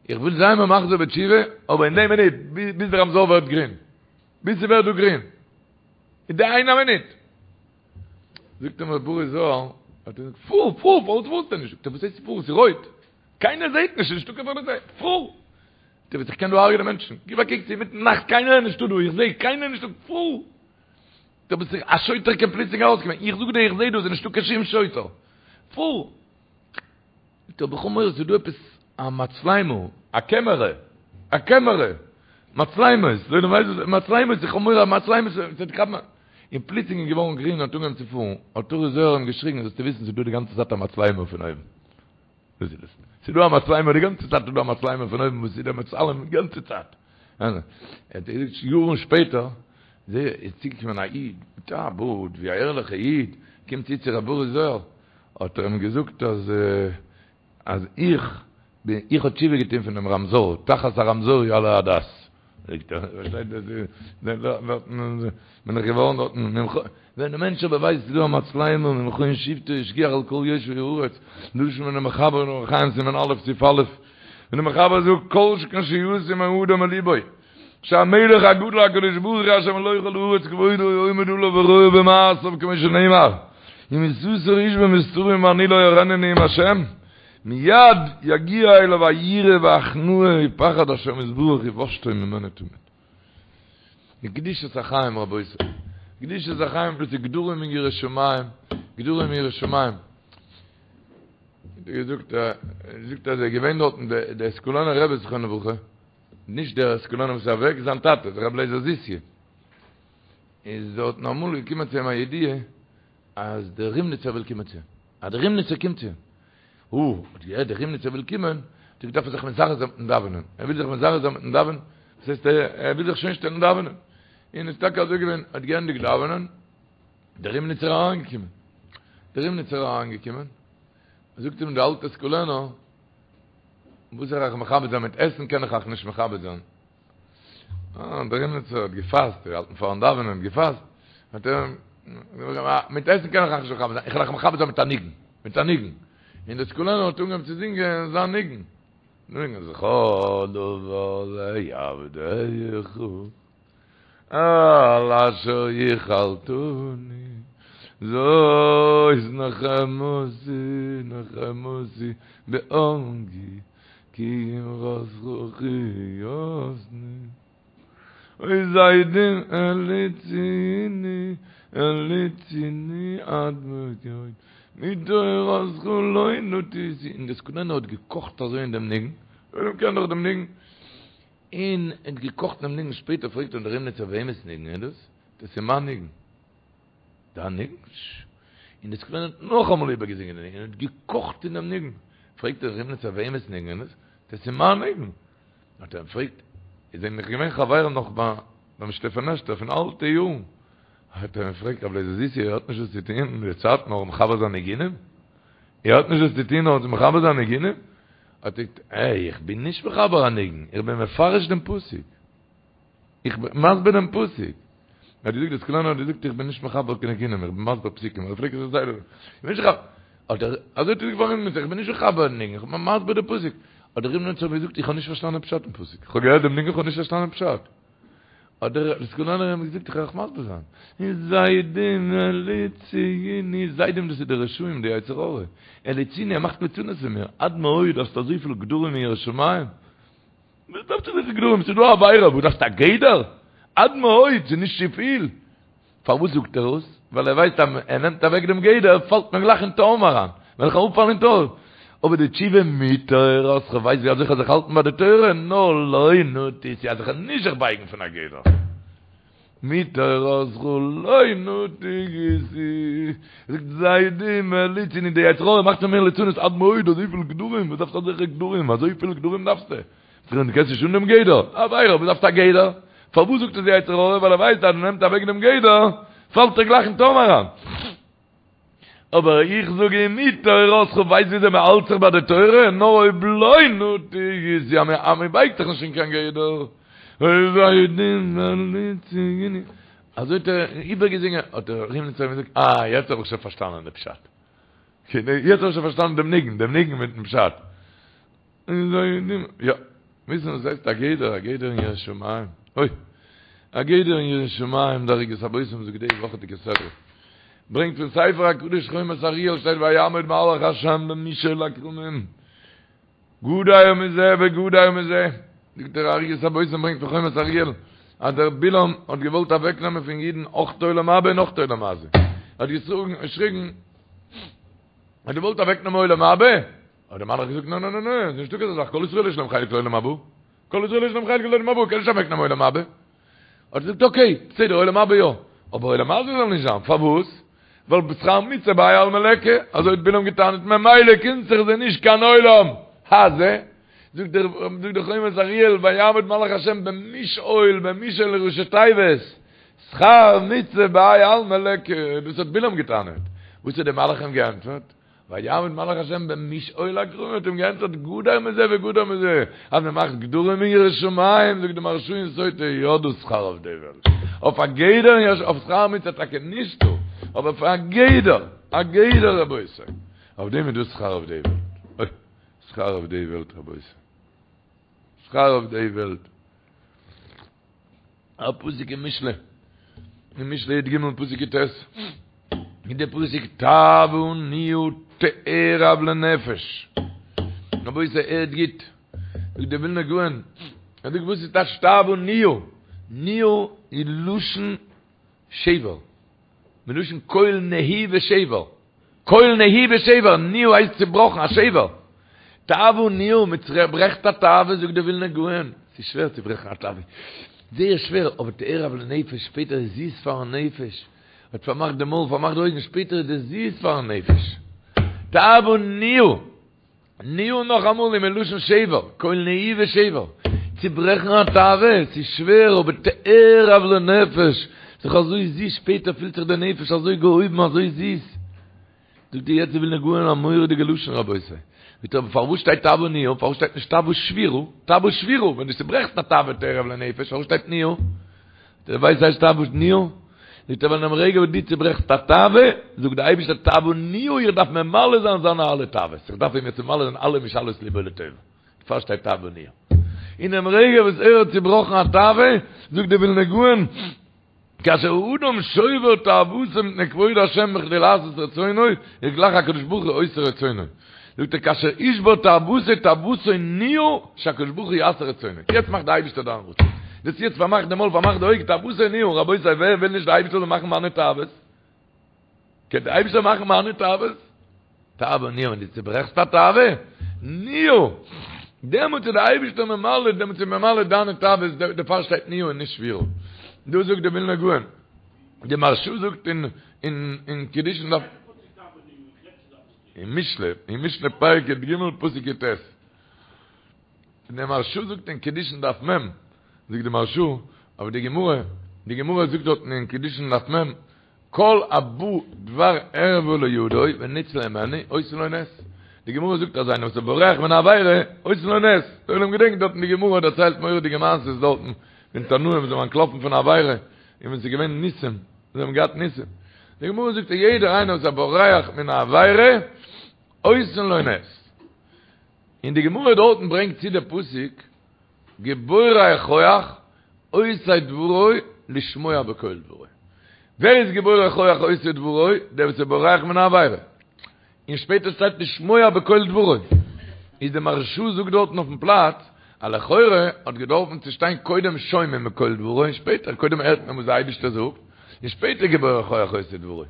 Speaker 1: איך וויל זיין מחזיר בתשובה, אבער אין די מינוט, ביז דער רמזור ווערט גרין, ביז ס'ווערט דא גרין, אין די איינע מינוט. זאגט אים ר' אורי זוהר, האט ער געזאגט, פאר, פאר, פארוואס פארסטו נישט? זאגט ער, וואס הייסט פאר, ס'איז רויט, קיינער זעט נישט, ס'איז נישטא קיין פאליציי, פאר! זאגט ער, וואס איך קען דא הרג'נען מענטשן, גיב א קוק, ס'איז אינמיטן נאכט, קיינער איז נישטא דא, איך זע קיינער נישטא, פאר! דו ביסט זיכער א שוטר קען פלוצלינג ארויסקומען, איך זאג דיר איך זעה דא ס'איז נישטא קיין שום שוטר, פאר! זאגט ער אבער איך האב מורא ס'איז דא עפעס א מצלמה, א קעמערע, א קעמערע, מצלמות, דער עולם ווייסט וואס מצלמות, איך האב מורא אז מצלמות וועט כאפן, און פלוצלינג איז געווארן גרין און האט אנגעהויבן צו פארן, האט אורי זוהר אים געשריגן זאלסטו וויסן ס'איז דא די גאנצע צייט א מצלמה פון אויבן. דאס איז עס. ס'איז דא א מצלמה די גאנצע צייט איז דא א מצלמה פון אויבן וואס איז דער מצלם די גאנצע צייט. ער האט געזאגט יארן שפעטער איז צוגעקומען א איד מיט א בארד ווי א ערליכע איד קומט צו צו ר' אורי זוהר האט ער אים געזאגט אז אז איך בין איך האב תשובה געטון פון דעם רמזור תחת הרמזור יעלה הדס. זאגט ער פארשטייט בין איך געווארן דארטן ווען די מענטש אבער ווייסט ס'איז דא א מצלמה ממכון שבתו השגיח על כל יושבי הארץ, לשון פונעם מחבר אין אורח חיים סימן א' סעיף א', ווען דער מחבר זאגט כל שכן שישים האדם בלבו. שהמלך הגדול הקדוש ברוך הוא אשר מלא כל הארץ כבודו עומד עליו ורואה במעשיו כמו שנאמר אם יסתר איש במסתרים ואני לא אראנו נאום השם מיד יגיע אליו היראה וההכנעה ופחד השם יתברך ובושתו ממנו תמיד. די קדושת החיים רבותי, קדושת החיים דאס איז גדרים אין יראת שמים, גדרים אין יראת שמים. געזאגט זאגט אז ער געווען דארטן דער סקולענער רבי זכרונו לברכה, נישט דער סקולענער וואס איז אוועק, זיין טאטע, דער רבי לייזער זיסיע, איז דארטן אמאל געקומען צו אים א ידיעה אז דער רימניצער וויל קומען צו אים, אז דער רימניצער קומט צו אים. הו, האט געהערט דער רימניצער וויל קומען, האט ער געדארפט זיך מזרז זיין מיטן דאווענען, ער וויל זיך מזרז זיין מיטן דאווענען, דאס הייסט ער וויל זיך שוין שטעלן דאווענען, און איז טאקע אזוי געווען, האט געענדיגט דאווענען, דער רימניצער אריינגעקומען, דער רימניצער אריינגעקומען, זאגט אים דער אלטער סקולענער, וואס זאל איך אייך מכבד זיין מיט עסן קען איך אייך נישט מכבד זיין, אה, דער רימניצער האט געפאסט, געהאלטן פארן דאווענען, געפאסט, האט ער, מיט עסן קען איך אייך נישט מכבד זיין, איך וועל אייך מכבד זיין מיט א ניגון, מיט א ניגון. און דער סקולענער האט אנגעהויבן צו זינגען זיין ניגון. ניגון זכור דבר לעבדיך, על אשר יחלתני, זאת נחמתי, נחמתי בעניי. כי אמרתך חייתני. אוי זדים הלעיטוני, הלעיטוני עד מאוד מתורתך לא נטיתי. און דער סקולענער האט געקאכט אזוי אין דעם ניגון, דער עולם קען דאך דעם ניגון, און ער האט געקאכט אין דעם ניגון, שפעטער פרעגט אים דער רימניצער וועמענס ניגון איז דאס? דאס איז מיין ניגון. דיין ניגון? און דער סקולענער האט נאכאמאל איבערגעזינגען די ניגון און האט געקאכט אין דעם ניגון. פרעגט דער רימניצער וועמענס ניגון איז עס? דאס איז מיין ניגון. האט ער אים געפרעגט, איר זענט דאך געווען חברים נאך ביים שטעפענעשטער פון אלטע יארן. האט ער אים געפרעגט, רבי לייזער זיסי, איר האט נישט וואס צו טון אין די צייט נאר מחבר זיין ניגונים? איר האט נישט וואס צו טון נאר צו מחבר זיין ניגונים? האט ער געזאגט, עה, איך בין נישט מחבר א ניגון, איך בין מפרש דעם פסוק. איך בין מסביר דעם פסוק. ער האט געזאגט, דער סקולענער האט געזאגט, איך בין נישט מחבר קיין ניגונים, איך בין מסביר פסוקים. ער פלעגט עס זייער, איך בין נישט מחבר. האט ער, אזוי האט ער געזאגט פארן רימניצער, איך בין נישט מחבר ניגון, איך בין מסביר דעם פסוק. האט דער רימניצער געזאגט, איך האב נישט פארשטאנען פשט אין פסוק. איך האב געהערט דעם ניגון, איך האב נישט פארשטאנען פשט. האט דער סקולענער אים געזאגט, איך וועל אייך מסביר זיין. זדים הלעיטוני, זדים דאס איז די רשעים, די יצר הרע. הלעיטוני, ער מאכט ליצנות פון מיר. עד מאוד, האסט אזויפיל גדרים אין יראת שמים. וואס דארפסטו אזויפיל גדרים? ס'איז דא א עבירה, וואס דארפסטו א גדר? עד מאוד, ס'איז נישט צופיל. פארוואס זאגט ער עס? ווייל ער ווייסט אז ער נעמט אוועק דעם גדר, פאלט מען גלייך אין תהום אריין. וועל איך אראפפאלן אין תהום. אבער די תשובה מתורתך, כ'ווייס ווי אזוי כ'זאל זיך האלטן ביי די תורה, נאר לא נטיתי, אז איך וועל נישט זיך בייגן פון א גדר. מתורתך לא נטיתי, זאגט זדים הלעיטוני, די יצר הרע מאכט פון מיר ליצנות עד מאוד, אזויפיל גדרים, וואס דארפסטו אזעלכע גדרים, אזויפיל גדרים דארפסטו? דו קענסט נישט אן דעם גדר, עבירה, וואס דארפסטו א גדר? פארוואס זאגט עס די יצר הרע? ווייל ער ווייסט אז ער נעמט אוועק דעם גדר, פאלט ער גלייך אין תהום אריין. אבער איך זאג אים מתורתך ווייסט וויאזוי מען האלט זיך ביי די תורה, נאר אויב לא נטיתי, אז מען בייגט זיך נישט אין קיין גדר, אזוי האט ער איבערגעזינגען, האט דער רימניצער געזאגט, אה, יעצט האב איך שוין פארשטאנען די פשט. יעצט האב איך שוין פארשטאנען דעם ניגון, דעם ניגון מיטן פשט. יא, וויסן וואס הייסט א גדר, א גדר אין יראת שמים, אוי, א גדר אין יראת שמים, דער ערוגת הבושם זאגט די וואכעדיגע סדרה, ברענגט פון ספר הקדוש חומת אריאל שטייט ויעמוד מלאך השם במשעול הכרמים, גדר מזה וגדר מזה, זאגט דער ערוגת הבושם ברענגט פון חומת אריאל, אז דער בלעם האט געוואלט אוועק נעמען פון אידן אויך עולם הבא און אויך עולם הזה, ער האט געשריגן, ער האט געוואלט אוועק נעמען עולם הבא, האט דער מלאך געזאגט, נא נא נא נא, ס'איז נישטא כזה זאך, כל ישראל יש להם חלק לעולם הבא, כל ישראל יש להם חלק לעולם הבא, קען נישט אוועק נעמען עולם הבא. האט ער געזאגט, אקעי, בסדר, עולם הבא יא, אבער עולם הזה זאל נישט זיין, פארוואס? ווייל שכר מצוה בהאי עלמא ליכא, אזוי האט בלעם געטענה'ט, ממילא קומט זיך זיי נישט קיין עולם הזה. זאגט דער זאגט דער חומת אריאל, ויעמוד מלאך השם במשעול, במשעול איז ראשי תיבות, שכר מצוה בהאי עלמא ליכא, דאס האט בלעם געטענה'ט. וואס האט דער מלאך אים געענטפערט? ויעמוד מלאך השם במשעול הכרמים האט אים געענטפערט גדר מזה וגדר מזה, אז מען מאכט גדרים אין יראת שמים, זאגט די מהרש"א אין סוטה, יא דא שכר אויף די וועלט, אויף א גדר אין יראת אויף שכר מצוה טאקע נישטא, אבער פאר א גדר, א גדר רבותי, אויף דעם איז דא שכר אויף די וועלט, אוי, שכר אויף די וועלט רבותי, שכר אויף די וועלט. א פסוק אין משלי, אין משלי י"ג פסוק י"ט, איז דער פסוק תאוה נהיה תערב לנפש. רבותי הערט גוט, זאגט דער ווילנער גאון, ער זאגט וואס איז טייטש תאוה נהיה? נהיה איז לשון שבר, מלשון קול נהי ושבר, קול נהי ושבר, נהיה הייסט צובראכן, א שבר. תאוה נהיה, מען צוברעכט א תאווה, זאגט דער ווילנער גאון, ס'איז שווער צו ברעכן א תאווה, זייער שווער, אבער תערב לנפש, שפעטער איז זיס פארן נפש, האט פארמאכט די מויל, פארמאכט די אויגן, שפעטער איז דאס זיס פארן נפש. תאוה נהיה. נהיה נאכאמאל איז מלשון שבר, קול נהי ושבר, צוברעכן א תאווה, ס'איז שווער אבער תערב לנפש, ס'איז אזוי זיס, שפעטער פילט זיך די נפש אזוי געהויבן אזוי זיס. זאגט דיר יעצט די ווילנא גאון א מורא'דיגע לשון רבותי, זאגט ער פארוואס שטייט תאוה נהיה, פארוואס שטייט נישט תאוה שבירה, תאוה שבירה, ווען דו צוברעכסט א תאווה תערב לנפש, פארוואס שטייט נהיה? דו ווייסט וואס הייסט תאוה נהיה? זאגט ער ווייל אינעם רגע וואס דו צוברעכסט א תאווה, זאגט דער אייבערשטער תאוה נהיה, איך דארף ממלא זיין זיינע אלע תאוות, איך דארף אים יעצט ממלא זיין אלע משאלות לבו לטובה, דערפאר שטייט תאוה נהיה. אינעם רגע וואס ער האט צובראכן א תאווה, זאגט דער ווילנא גאון, כאשר האדם שובר תאוותו מפני כבוד השם בכדי לעשות רצונו, איז גלייך הקדוש ברוך הוא עושה רצונו. זאגט ער כאשר ישבור תאוותו תאוותו נהיה שהקדוש ברוך הוא יעשה רצונו. יעצט מאכט די אייבישטער דיין רצון. דאס יעצט פארמאכט די מויל פארמאכט די אויג תאוותו נהיה, רבותי ווער וויל נישט די אייבישטער זאל מאכן מיינע תאוות? קען די אייבישטער מאכן מיינע תאוות? תאווה נהיה ווען דו צוברעכסט א תאווה, נהיה, דעמאלטס איז די אייבישטער ממלא, דעמאלטס איז ממלא דיינע תאוות, דערפאר שטייט נהיה און נישט שבירה. דא זאגט די ווילנא גאון, די מהרשא זאגט אין אין קידושין דף, אין משלי, אין משלי פרק י"ג פסוק י"ט, די מהרשא זאגט אין קידושין דף מ', זאגט די מהרשא, אבער די גמרא, די גמרא זאגט דארטן אין קידושין דף מ', כל הבא דבר ערווה לידו וניצול הימנו עושין לו נס. די גמרא זאגט אז איינער וואס איז בורח מן העבירה עושין לו נס. דער עולם געדענקט דארטן די גמרא דערציילט מורא'דיגע מעשות דארטן פון תנאים וואס זענען אנטלאפן פון עבירה און ווען ס'איז געווען ניסים זיי האבן געהאט ניסים. די גמרא זאגט אז יעדער איינער וואס איז בורח מן העבירה עושין לו נס. און די גמרא דארטן ברענגט צו די פסוק גיבורי כח עושי דברו לשמוע בקול דברו. ווער איז גיבורי כח עושי דברו? דער וואס איז בורח מן העבירה. און שפעטער שטייט לשמוע בקול דברו. איז די מהרשא זאגט דארטן אויפן פלאץ אז לכאורה האט געדארפן צו שטיין קודם שומעים בקול דברו און שפעטער קודם הערט מען וואס דער אייבערשטער זאגט און שפעטער גיבורי כח עושי דברו.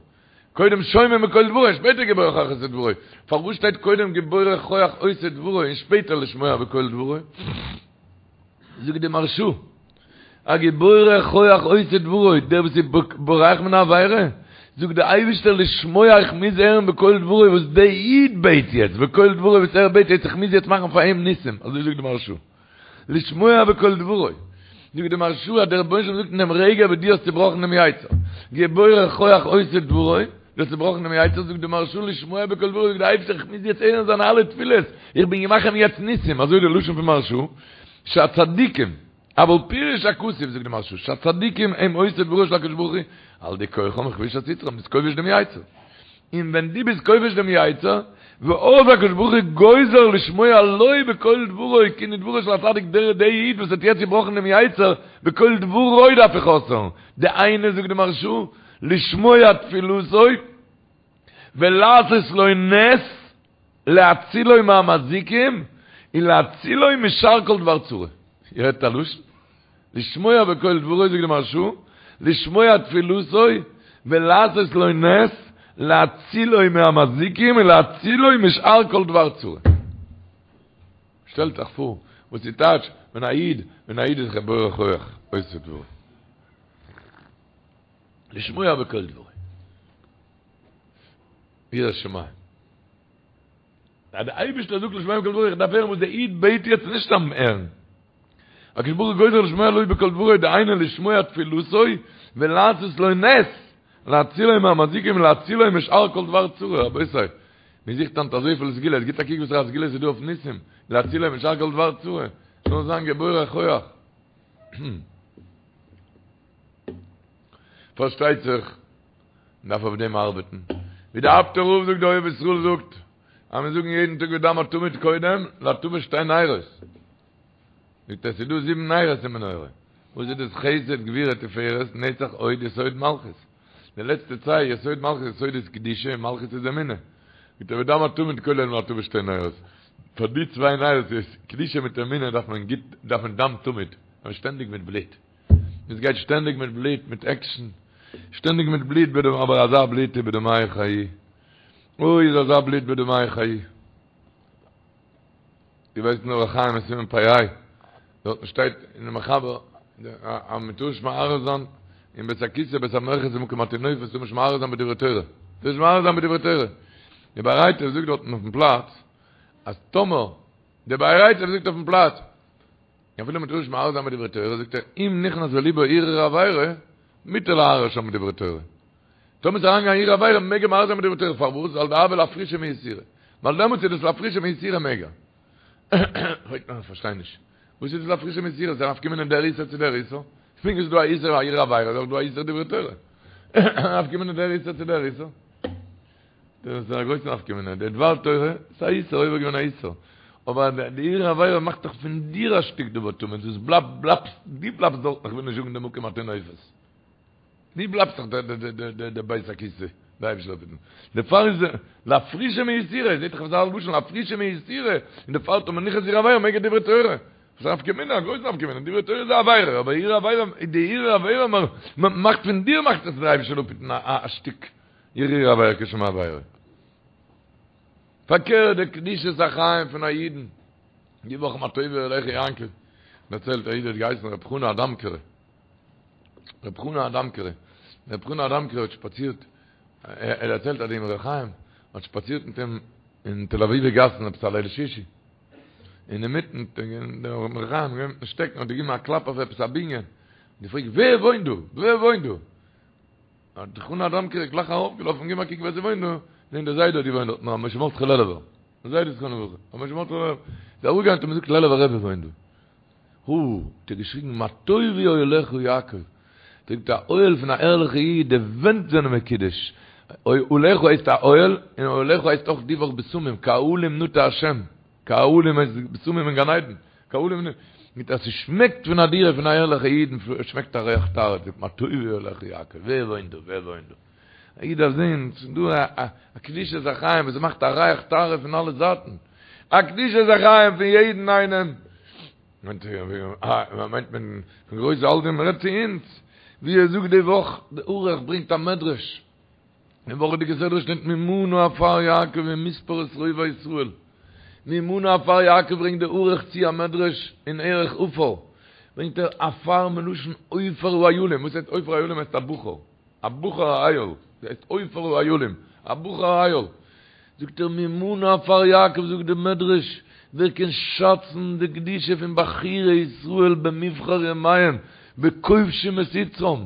Speaker 1: קודם שומעים בקול דברו און שפעטער גיבורי כח עושי דברו. פארוואס שטייט קודם גיבורי כח עושי דברו און שפעטער לשמוע בקול דברו? זאגט די מהרשא, א גיבורי כח עושי דברו, דער וואס איז בורח מן העבירה, זאגט דער אייבערשטער לשמוע איך מוז הערן בקול דברו וואס דער איד בעט יעצט, בקול דברו וואס ער בעט יעצט איך מוז יעצט מאכן פאר אים ניסים, אזוי זאגט די מהרשא. לשמוע בקול דברו. זאגט די מהרשא אז דער רבונו של עולם זאגט אין דעם רגע וואס דו האסט צובראכן דעם יצר, גיבורי כח עושי דברו, דו האסט צובראכן דעם יצר, זאגט די מהרשא לשמוע בקול דברו, זאגט דער אייבערשטער איך מוז יעצט הערן זיינע אלע תפילות, איך בין געמאכט אים יעצט ניסים, אזוי די לשון פון מהרשא, שהצדיקים, אבל פירש הכתוב, זאגט די מהרשא, שהצדיקים הם עושי דברו של הקדוש ברוך הוא, על ידי כוחם וכבישת יצרם, ביסט כובש דעם יצר. און ווען דו ביסט כובש דעם יצר, ואז הקדוש ברוך הוא גוזר לשמוע לו בקול דברו, כאילו דברו של הצדיק דער דער איד וואס האט יעצט געבראכן דעם יצר, בקול דברו דארף איך אויסהערן, דהיינו זאגט די מהרשא, לשמוע תפילתו ולעשות לו נס להצילו מהמזיקים ולהצילו משאר כל דבר צרה. איר הערט א לשון? לשמוע בקול דברו זאגט די מהרשא, לשמוע תפילתו ולעשות לו נס להצילו מהמזיקים ולהצילו משאר כל דבר צרה. שטעלט זיך פאר וואס איז טייטש ווען א איד ווען א איד איז גיבור כח עושה דברו. לשמוע בקול דברו. יראת שמים. אז דער אייבערשטער זאגט לשמוע בקול דברו, איך דארף הערן וואס דער איד בעט יעצט נישט סתם הערן. הקדוש ברוך הוא גוזר לשמוע לו בקול דברו, דהיינו לשמוע תפילתו ולעשות לו נס, להצילו מהמזיקים ולהצילו משאר כל דבר צרה, רבותי, מען זוכט היינט אזויפיל סגולות, גיט א קוק וואסערע סגולות איז דא אויף ניסים, להצילו משאר כל דבר צרה, זאל זיין גיבורי כח. פארשטייט זיך, מען דארף אויף דעם ארבעטן. ווי דער אפטער רב זאגט, דער אוהב ישראל זאגט, אז מיר זאגן יעדן טאג ודם התמיד קודם, להטבת שתי נרות. זאגט ער, ס'איז דא זיבן נרות אין מנורה. וואס איז דאס חסד גבורה תפארת נצח הוד יסוד מלכות? די לעצטע צוויי יסוד מלכות יסוד איז קדושה און מלכות איז אמונה. מיט ודם התמיד כולל להטבת שתי נרות. פאר די צוויי נרות איז קדושה מיט אמונה דארף מען גוט דארף מען דם תמיד, דארף מען שטענדיג מיט בלוט. עס גייט שטענדיג מיט בלוט מיט עקשן. שטענדיג מיט בלוט בדם אבער אזא בלוט איז בדמייך חיי. אוי איז אזא בלוט בדמייך חיי. דו ווייסט אין אורח חיים אין סימן פ"ה, דארטן שטייט אין די מחבר אז מען טאר נישט מהרהר זיין אין בית הכסא בית המרחץ ומקום הטינופת טאר מען נישט מהרהר זיין בדברי תורה, טאר נישט מהרהר זיין בדברי תורה. די באר היטב זאגט דארטן אויפן פלאץ אז טאמער, די באר היטב זאגט אויפן פלאץ, אפילו מען טאר נישט מהרהר זיין בדברי תורה, זאגט ער, אם נכנס בליבו הרהור עבירה, מותר להרהר שם בדברי תורה. טאמער איז אריינגעגאנגען הרהור עבירה מעג ער מהרהר זיין בדברי תורה, פארוואס? ווייל דהוה לאפרושי מאיסורא. ווייל דעמאלטס איז דאס לאפרושי מאיסורא מעג ער. פרעגט מען איך פארשטיי נישט. וואס איז דאס לאפרושי מאיסורא? ס'איז א נפקא מינה דער איסור צו דער איסור? פונקט ווי ס'איז דא א איסור הרהור עבירה איז אויך דא א איסור דברי תורה. נפקא מינה דער איסור צו דער איסור? דאס איז א גרויסע נפקא מינה. די דבר תורה איז א איסור, עובר געווען א איסור. אבער די הרהור עבירה מאכט דאך פון דיר א שטיק דבר טמא, דאס בלייבט, בלייבסט, דו בלייבסט דארטן, איך וויל נישט זאגן די מקום הטינופת. דו בלייבסט דאך די בית הכסא, די אייבישטער זאל אפהיטן. דערפאר איז לאפרושי מאיסורא, זעט זיך אזא לשון לאפרושי מאיסורא, און דערפאר טאמער נכנס הרהור עבירה מעג ער דברי תורה. וואס א נפקא מינה, א גרויסע נפקא מינה, דברי תורה איז א עבירה, אבער הרהור עבירה, די הרהור עבירה מאכט פון דיר מאכט עס דער אייבישטער זאל אפהיטן א שטיק הרהור עבירה כשם עבירה. פארקערט די קדושת החיים פון א אידן, די וואך מה טובו אהליך יעקב, דערציילט א איד האט געהייסן ר' חנא אדאמקערע, ר' חנא אדאמקערע, ר' חנא אדאמקערע האט שפאצירט, ער דערציילט אז די אמרי חיים האט שפאצירט מיט אים אין תל אביב'ע גאסן עפעס א ליל שישי, אינמיטן דער אמרי חיים געווען מיטן שטעקן האט געגעבן א קלאפ אויף עפעס א בנין, געפרעגט ווער וואוינט דא? ווער וואוינט דא? האט ר' חנא אדאמקערע גלייך ארויפגעלאפן געבן א קוק ווער ס'וואוינט דא, זעהן דער זיידע האט געוואוינט דארט, ר' משה מרדכי לעלובער, דער זיידע זכרונו לברכה, ר' משה מרדכי לעלובער, איז אראפגעגאנגען האט אים געזאגט לעלובער רבי וואוינט דא. הו! האט ער געשריגן מה טובו אוהליך יעקב, זאגט א אוהל פון א ערליכע איד, די ווענט זענען מקודש, אוהליך הייסט א אוהל, און אוהליך הייסט אויך די וואך בשמים, כאהלים נטע השם, כאהלים הייסט בשמים אין גן עדן, כאהלים נטע, מיט אז ס'שמעקט פון א דירה פון א ערליכע איד, שמעקט א ריח טהרה, זאגט מה טובו אוהליך יעקב, ווער וואוינט דא, ווער וואוינט דא? א איד דארף זען, ס'איז דא א קדושת החיים וואס מאכט א ריח טהרה פון אלע זייטן, א קדושת החיים פון יעדן איינעם, מיינט מען פון גרויסע אלטע, מען רעדט צו אונז, ווי ער זאגט די וואך, די ערוך ברענגט א מדרש, אין וואכעדיגע סדרה שטייט מי מנה עפר יעקב ומספר את רובע ישראל, מי מנה עפר יעקב ברענגט די ערוך צו א מדרש אין ערך עפר, ברענגט ער עפר מלשון עופר האילים, וואס הייסט עופר האילים הייסט א בחור. א בחור א איל, דאס הייסט עופר האילים, א בחור א איל. זאגט ער מי מנה עפר יעקב זאגט די מדרש, ווער קען שאצן די קדושה פון בחורי ישראל במבחר ימיהם, בכובשים את יצרם,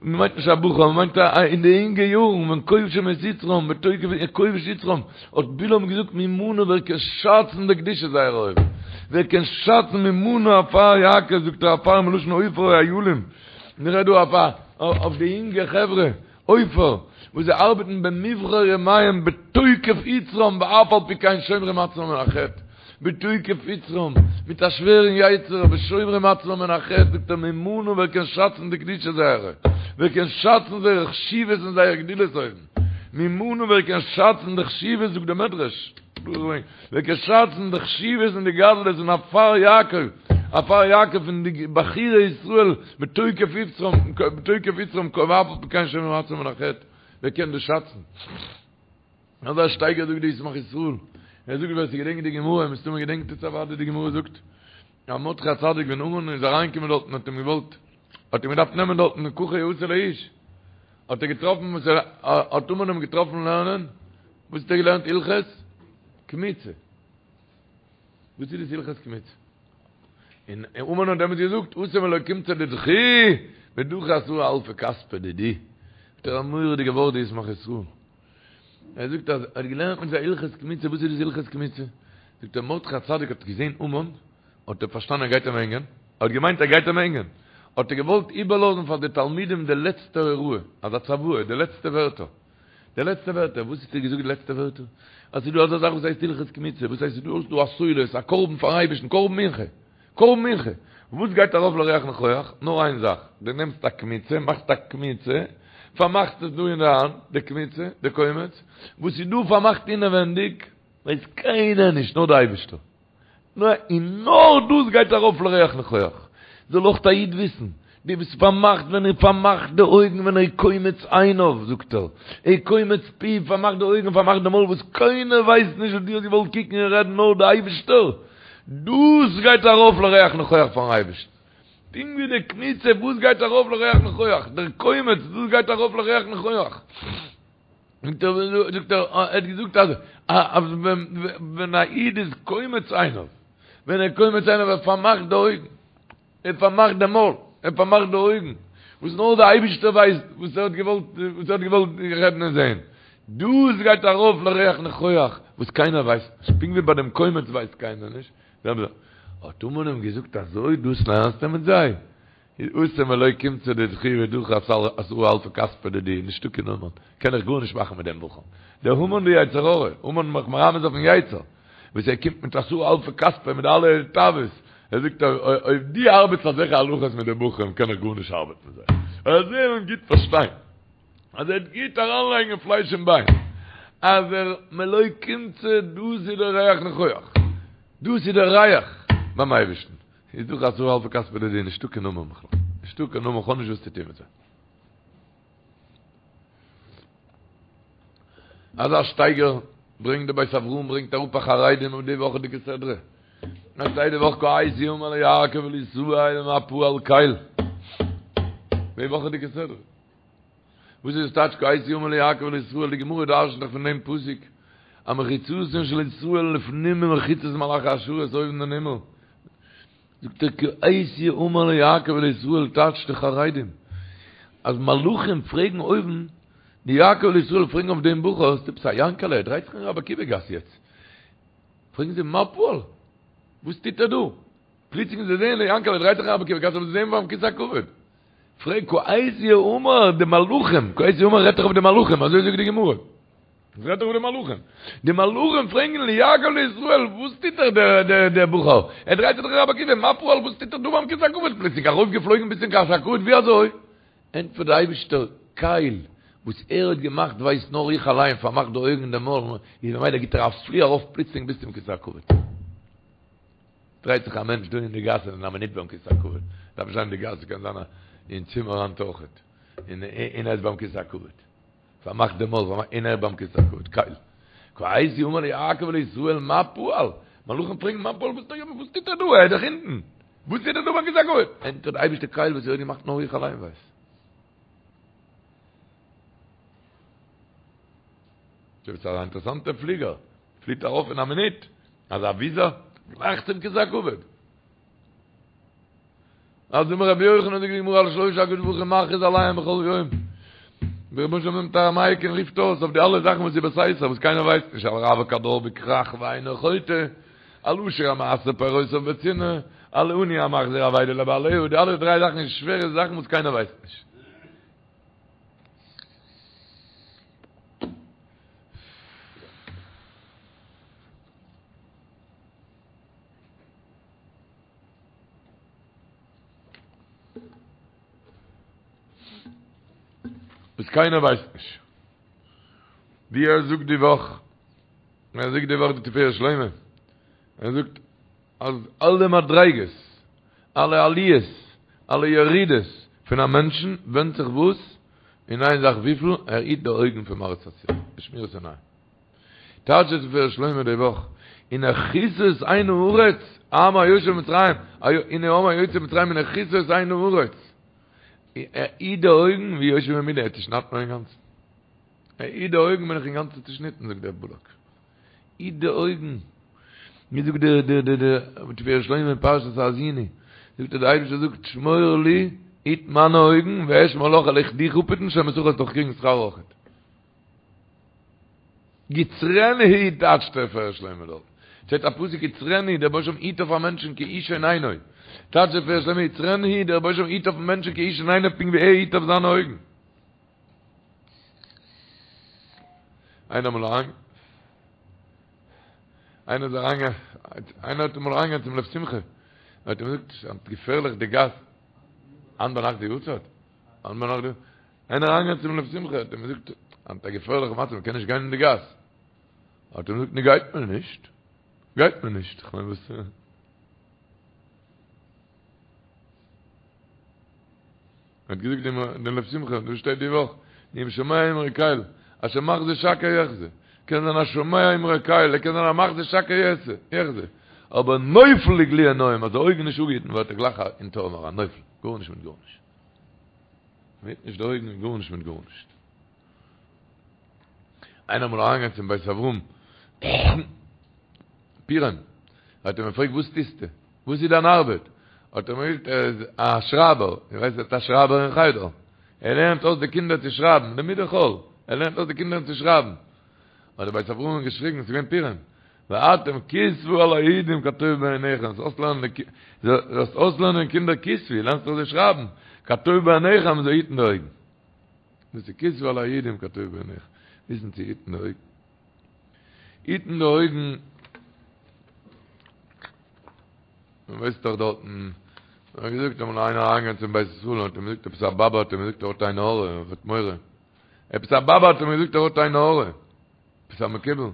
Speaker 1: מען מיינט נישט א בחור, מען מיינט אין די אינגע יארן, ווען כובשים את יצרם, בתוקף כובש יצרם, האט בלעם געזאגט מי מנה ווער קען שאצן די קדושה זייער אויבן, ווער קען שאצן מי מנה עפר יעקב, זאגט ער עפר מלשון עופר האילים, מ'רעדט דא אויף א אויף די אינגע חברה, עופר, וואס זיי ארבעטן במבחר ימיהם בתוקף יצרם ואף על פי כן שומרים עצמם מן החטא, בתוקף יצרם, מיט א שווערן יצר אבער שומרים עצמם מן החטא, זאגט ער מי מנה ווער קען שאצן די קדושה זייערע, ווער קען שאצן זייער חשיבות און זייער גדלות אויבן, מי מנה ווער קען שאצן די חשיבות זאגט די מדרש. ווער קען שאצן די חשיבות און די גדלות פון עפר יעקב, עפר יעקב פון די בחורי ישראל בתוקף יצרם, בתוקף יצרם ואף על פי כן שומרים עצמם מן החטא, ווער קען דאס שאצן? אזא שטייגער זאגט די ישמח ישראל, ער זאגט ווער ס'געדענקט די גמרא, מסתמא געדענקט עס אוודאי די גמרא זאגט, אז מרדכי הצדיק ווען המן איז אריינגעקומען דארטן האט אים געוואלט, האט אים געדארפט נעמען דארטן ככה יעשה לאיש, האט ער געטראפן וואס ער האט המן אים געטראפן לערנען, וואס האט ער געלערנט הלכות קמיצה? וואס איז דאס הלכות קמיצה? און המן האט דעמאלטס געזאגט אתא מלא קומצא דידכו ודחי עשרה אלפי כספא דידי. האט ער א מורא'דיגע ווארט די ישמח ישראל. ער זאגט אז ער האט געלערנט מיט זיי הלכות קמיצה, וואס איז דאס הלכות קמיצה? זאגט ער מרדכי הצדיק האט געזען המן, האט ער פארשטאנען ער גייט אים הענגען, ער האט געמיינט ער גייט אים הענגען, האט ער געוואלט איבערלאזן פאר די תלמידים די לעצטע הוראה, אזא צוואה, די לעצטע ווערטער. די לעצטע ווערטער, וואס האט ער געזאגט די לעצטע ווערטער? אז ס'איז דא אזא זאך וואס הייסט הלכות קמיצה, וואס הייסט ס'איז דא א סולת, א קרבן פארן אייבערשטן, קרבן מנחה. קרבן מנחה. וואס גייט ארויף לריח ניחוח? נאר איין זאך, דו נעמסט א קמיצה, מאכסט א קמיצה, פארמאכסט עס דא אין די האנט, די קמיצה, די קומץ, וואס איז דא פארמאכט אינעווענדיג, ווייסט קיינער נישט, נאר די אייבערשטער. און נאר דאס גייט ארויף לריח ניחוח. זאל אויך א איד וויסן, דו ביסט פארמאכט ווען ער פארמאכט די אויגן ווען ער קומץ עיניו, זאגט ער, ער קומץ פיו, פארמאכט די אויגן, פארמאכט די מויל וואס קיינער ווייסט נישט וואס דו האסט געוואלט קוקן און רעדן נאר די אייבערשטער, דאס גייט ארויף לריח ניחוח פארן אייבערשטן. פונקט ווי די קמיצה וואס גייט ארויף לריח ניחוח, דער קומץ דאס גייט ארויף לריח ניחוח. זאגט ער, זאגט ער, ער האט געזאגט אז אז ווען א איד איז קומץ עיניו, ווען ער קומץ עיניו ער פארמאכט די אויגן, ער פארמאכט די מויל, ער פארמאכט די אויגן, וואס נאר די אייבישטער ווייסט וואס ער האט געוואלט, וואס ער האט געוואלט רעדן און זען, דאס גייט ארויף לריח ניחוח, וואס קיינער ווייסט נישט, פונקט ווי ביי דעם קומץ ווייסט קיינער נישט, האט המן אים געזאגט אזוי דאס לערנסטו מיט זיי? אתא מלא קומצא דידכו ודחי עשרה אלפי כספא דידי, נישטא קיין המן, קען איך גארנישט מאכן מיט דעם בחור. דער המן די יצר הרע, המן מאכט מרמז אויפן יצר, וואס ער קומט מיט עשרה אלפי כספא מיט אלע תאוות, ער זאגט אויב דו ארבעטסט אזעלכע הלכות מיט די בחורים קען איך גארנישט ארבעטן מיט זיי. ער זאל אים גוט פארשטיין, אז ער וועט גוט אריינלייגן אין פלייש און ביין, אז ער מלא קומצא דאס איז דער ריח ניחוח, דאס איז דער ריח ביים אייבערשטן. איז דאך עשרה אלפי כספא דידי, נישטא קיין המן בכלל. נישטא קיין המן, כ'האב נישט וואס צו טון מיט זיי. אזא שטייגער ברענגט די בית אברהם ברענגט אראפ א חרדים אויף די וואכעדיגע סדרה. עס שטייט די וואך כעת יאמר ליעקב ולישראל מה פעל קל. די וואכעדיגע סדרה. וואס איז טייטש כעת יאמר ליעקב ולישראל? די גמרא דרש'נט דאך פון דעם פסוק אז מחיצתן של ישראל לפנים ממחיצת מלאכי השרת אויבן אין הימל. זאגט ער כעת יאמר ליעקב ולישראל טייטשט די חרדים אז מלאכים פרעגן אויבן די יעקב ולישראל פרעגן אויף דעם בחור ס'איז עפעס א יענקעלע ער דרייט זיך אין רבי עקיבא גאס יעצט פרעגן זיי מה פעל וואס טוט ער דא פלוצלינג זיי זעען די יענקעלע דרייט זיך אין רבי עקיבא גאס אבער זיי זעען ביים כסא הכבוד פרעג כעת יאמר די מלאכים כעת יאמר רעדט דאך אויף די מלאכים אזוי זאגט די גמרא עס רעדט דאך אויף די מלאכים. די מלאכים פרעגן ליעקב לישראל, וואס טוט ער דער דער דער בחור? ער דרייט זיך דאך אין רבי עקיבא, מה פעל, וואס טוט ער דא ביים כסא הכבוד? פלוצלינג ארויפגעפלויגן ביז צום כסא הכבוד, ווי אזוי? ענטפערט דער אייבישטער, קל, וואס ער האט געמאכט ווייסט נאר איך אליין, פארמאכט די אויגן און די מויל, איז ממילא גיט ער א פלי ארויף פלוצלינג ביז צום כסא הכבוד. דרייט זיך א מענטש דא אין די גאס און אין א מינוט ביים כסא הכבוד. דארף נישט זיין אין די גאס, קען זיין אין צימער היינט אויכעט, און ער איז ביים כסא הכבוד. פארמאכט די מויל, פארמאכט, און ער ביים כסא הכבוד, קל. כעת יאמר ליעקב ולישראל מה פעל? מלאכים פרעגן מה פעל, וואס וואס טוט ער דא? ער איז דאך אונטן. וואס טוט ער דא ביים כסא הכבוד? ענטפערט די אייבערשטער קל וואס ער האט געמאכט נאר איך אליין ווייס. דאס איז א אינטערעסאנטע פליגער, פליט ארויף אין א מינוט, אזא וויזא, גלייך צום כסא הכבוד. אז אמר רבי יוחנן זאגט די גמרא על שלשה הקדוש ברוך הוא מכריז עליהם בכל יום. דער רבונו של עולם נעמט א מייק און רופט אויס אויף די אלע זאכן וואס איז בסתר וואס קיינער ווייסט נישט על רווק הדר בכרך ואינו חוטא, על עשיר המעשר פירותיו בצנעה, על עני המחזיר אבידה לבעליה, די אלע דריי זאכן איז שווערע זאכן וואס קיינער ווייסט נישט. וואס קיינער ווייסט נישט. ווי ער זאגט די וואך, ער זאגט די וואך די תפארת שלמה, ער זאגט אז אלע מדריגות, אלע עליות, אלע ירידות פון א מענטשן ווענדט זיך וואס? אין איין זאך וויפיל ער היט די אויגן פון מראית אסור, די שמירת עיניים. טייטשט דער תפארת שלמה די וואך, הנה כסה את עין הארץ, העם היושב במצרים, הנה העם היוצא ממצרים הנה כסה את עין הארץ. ער היט די אויגן והוא יושב בימיני, ער צושניידט מיר אינגאנצן. ער היט די אויגן בין איך אינגאנצן צושניטן זאגט דער בלק. היט די אויגן. ווי זאגט דער דער דער דער תפארת שלמה אין פרשת האזיני, זאגט ער דער אייבערשטער זאגט שמור לי, היט מיינע אויגן, ואשמור לך וועל איך דיך אפהיטן, שומר שכר וועסט דאך קריגן שכר אויכעט. יצרנו טייטשט דער תפארת שלמה דארט. שטייט א פסוק יצרנו דער רבונו של עולם היט אויף א מענטשן כאישון עינו. טייטשט דער תפארת שלמה יצרנו דער רבונו של עולם היט אויפן מענטשן כאישון עינו פונקט ווי ער היט אויף זיינע אויגן. איינער אמאל אריין איינער איז אריין איינער האט אמאל אריינגעגאנגען צום לב שמחה. האט אים געזאגט ס'איז געפערליך די גאס. היינט ביינאכט די יארצייט? היינט ביינאכט די. איינער אריינגעגאנגען צום לב שמחה האט אים געזאגט היינט א געפערליכע מצב מ'קען נישט גיין אין די גאס. האט אים געזאגט נו גייט מען נישט. גייט מען נישט. כ'מיין וואס. האט געזאגט דעם דעם לב שמחה, דא שטייט די וואך, אם שומע אמרי קל, אשר מחזה שקר יחזה, קען זיין א שומע אמרי קל, ער קען זיין א מחזה שקר יחזה, אבער נופל לגלי עיניים, אז די אויגן נישט אפגעהיטן ווערט ער גלייך אין תהום אריין, נופל, גארנישט מיט גארנישט. מ'היט נישט די אויגן, גארנישט מיט גארנישט. איינער אמאל אריינגעגאנגען צום בית אברהם, פורים, האט ער אים געפרעגט וואס טוסטו? וואס איז דיין ארבעט? האט ער אים געזאגט ער איז א שרייבער, איר ווייסט ער איז א שרייבער אין חדר, ער לערנט אויס די קינדער צו שרייבן, לימודי חול, ער לערנט אויס די קינדער צו שרייבן. האט דער בית אברהם געשריגן, עס איז געווען פורים, ואתם כתבו על היהודים כטוב בעיניכם, זאלסט אויסלערנען קינדער כתבו, לערנסט דאך זיי שרייבן, כטוב בעיניכם, זיי היטן די אויגן. דאס איז כתבו על היהודים כטוב בעיניכם, וויסן צו היטן די אויגן. היטן די אויגן, מען ווייסט דאך דארטן, מען האט געזאגט אמאל איינער אריינגעגאנגען צום בית ישראל און האט אים געזאגט עפעס א באבע האט אים געזאגט ער האט עין הרע, ער האט מורא, עפעס א באבע האט אים געזאגט ער האט עין הרע, עפעס א מקובל, האט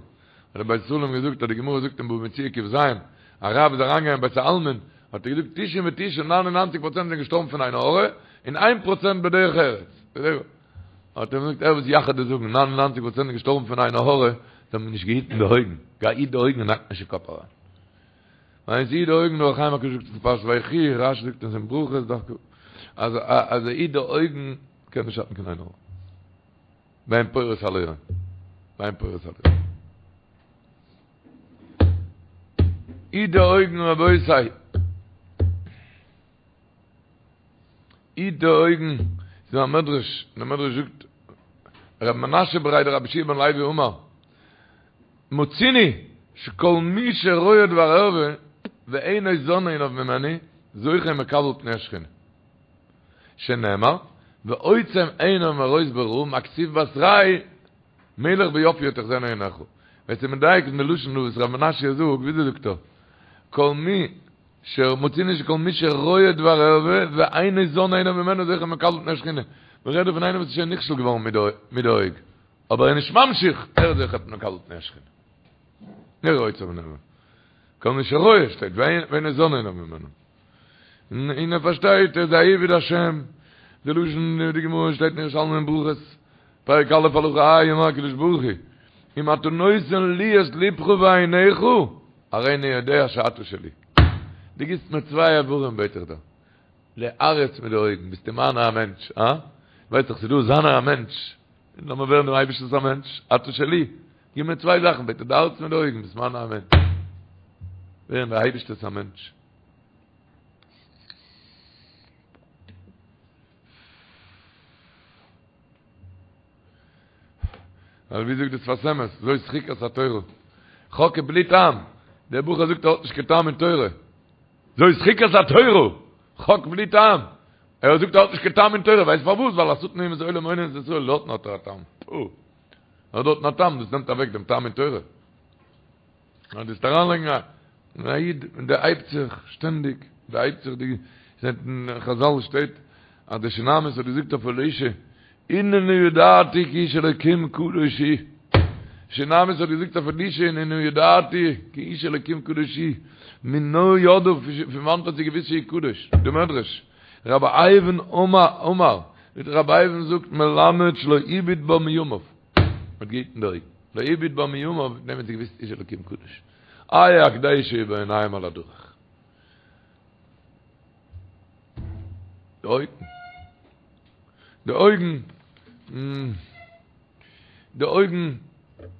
Speaker 1: דער בית ישראל אים געזאגט אז די גמרא זאגט אין בבא מציעא ק"ז, א רב איז אריינגעגאנגען אין בית העלמין, האט ער געזאגט תשעים ותשעה ניין און ניינציג פראצענט זענען געשטארבן פון עין הרע, און איין פראצענט בדרך ארץ. האט ער געזאגט ער וואס יאך דיר זאגן 99 פראצענט געשטארבן פון עין הרע, זיי האבן נישט געהיטן די אויגן, גיי היט די אויגן און האק נישט אין קאפ אריין. ווען ס'היט די אויגן דער אור החיים הקדוש זאגט אין פרשת ויחי, רש"י זאגט עס אין ברכות דווקא, אז אז ער היט די אויגן קען נישט שאטן קיין עין הרע. ואין פורס על היום. ואין פורס על היום. היט די אויגן רבותי. היט די אויגן, ס'איז דא א מדרש, און דער מדרש זאגט, ר' מנשה בריה דרבי יהושע בן לוי אמר, מצינו שכל מי שרואה דבר ערווה ואינו זן עיניו ממנו, זוכה ומקבל פני השכינה. שנאמר, ועוצם עיניו מראות ברע, מה כתיב בתריה, מלך ביופיו תחזינה עיניך. ווער ס'איז מדייק אין די לשון דא וואס ר' מנשה זאגט, וויאזוי זאגט ער? כל מי שמצינו שכל מי שרואה דבר ערווה ואינו זן עיניו ממנו זוכה ומקבל פני השכינה. מען רעדט דא פון איינעם וואס איז שוין נכשל געווארן מיט די אויג, אבער ער איז נישט ממשיך, ער איז זוכה ומקבל פני השכינה. נראה עוצם עיניו. כל מי שרואה שטייט ואינו זן עיניו ממנו. און ער פארשטייט ער איז א עבד השם, די לשון אין די גמרא שטייט אין ירושלמי אין ברכות, פרק א' הלכה ה' אמר הקדוש ברוך הוא, אם אתה נותן לי את לבך ועיניך, הרי אני יודע שאתה שלי. דו גיבסט מיר צוויי איברים בעט איך דיר, די הארץ מיט די אויגן, ביסטו מיינער א מענטש, הא? ווייסט דאך ס'איז דא זיינער א מענטש, לאמיר ווערן דעם אייבערשטנ'ס א מענטש, אתה שלי, גיב מיר צוויי זאכן בעט איך, די הארץ מיט די אויגן, ביסט מיינער א מענטש. ווערן די אייבערשטער'ס א מענטש. ווייל ווי זאגט די שפת אמת, זאת חוקת התורה. חוק בלי טעם. דער בחור זאגט ער האט נישט קיין טעם אין תורה. זאת חוקת התורה. חוק בלי טעם. ער זאגט ער האט נישט קיין טעם אין תורה. ווייסט פארוואס? ווייל השטן אומות העולם הונין את ישראל דארטן האט ער א טעם. פו. ער האט דארטן א טעם, דאס נעמט אוועק דעם טעם אין תורה. נאר דאס אריינלייגן א א איד און דערהייבט זיך שטענדיג, דערהייבט זיך די זעט אין חזל שטייט אז די שונמית האט געזאגט אויף אלישע הנני ידעתי כי איש אלקים קדוש הוא שונמית האט געזאגט אויף אלישע הנני ידעתי כי איש אלקים קדוש הוא מנא ידעה פון וואנעט האט זי געוואוסט שהוא קדוש די מדרש רבי אייבו אמר רבי אייבו זאגט מלמד שלא הביט בה מימיו האט געהיטן די אויגן. לא הביט בה מימיו, דעם האט זי געוואוסט איש אלקים קדוש. איה הקדשה בעיניים על הדרך. די אויגן. די אויגן. די אויגן.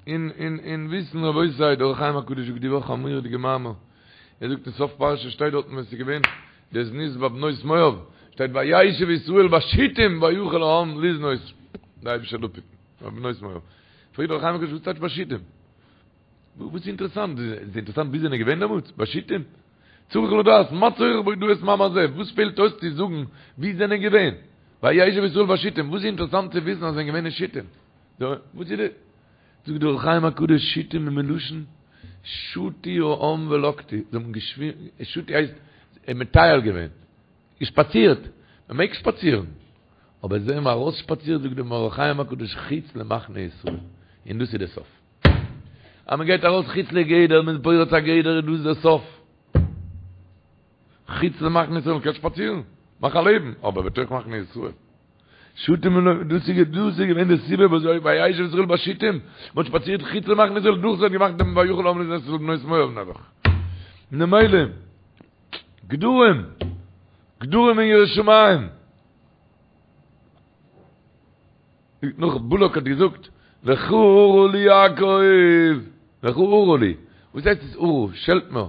Speaker 1: און און און וויסן רבותי, דער אור החיים הקדוש זאגט די וואך א מורא'דיגע מאמר. ער זאגט אין סוף פרשה שטייט דארטן ווען ס'איז געווען די זנות ביי בנות מואב, שטייט וישב ישראל בשיטים ויחל העם לזנות. די אייבישטער זאל אפהיטן. בנות מואב. פרעגט דער אור החיים הקדוש וואס טייטש בשיטים? וואס איז אינטערעסאנט? איז אינטערעסאנט ווי זענען געווען דעמאלטס? בשיטים? צריך לדעת, מה צורך בהודאת מאמר זה? וואס פעלט אויס צו זאגן ווי זענען געווען? וישב ישראל בשיטים, וואס איז אינטערעסאנט צו וויסן אז זענען געווען אין שיטים? וואס איז די? זאגט דער אור החיים הקדוש שיטים איז מלשון שטו העם ולקטו, זיי האבן געשווימען, שטו הייסט. מטייל געווען, געשפאצירט, מען מעג שפאצירן, אבער זיי האבן ארויסשפאצירט זאגט דער אור החיים הקדוש חוץ למחנה ישראל, און דאס איז די סוף. אז מען גייט ארויס חוץ לגדר, מען איז פורץ א גדר איז דאס די סוף. חוץ למחנה ישראל, מען קען שפאצירן, מאך א לעבן, אבער בתוך מחנה ישראל. שטים און דאס איז דאס איז געווען די סיבה וואס וישב ישראל בשיטים, מען האט שפאצירט חוץ למחנה ישראל, דאס האט געמאכט דעם ויחל העם לשנוא את בנות מואב נעבעך. ממילא, גדרים, גדרים אין יראת שמים. נאך בלק האט געזאגט, לכה ארה לי יעקב, לכה ארה לי, וואס הייסט עס ארה? שעלט מיר.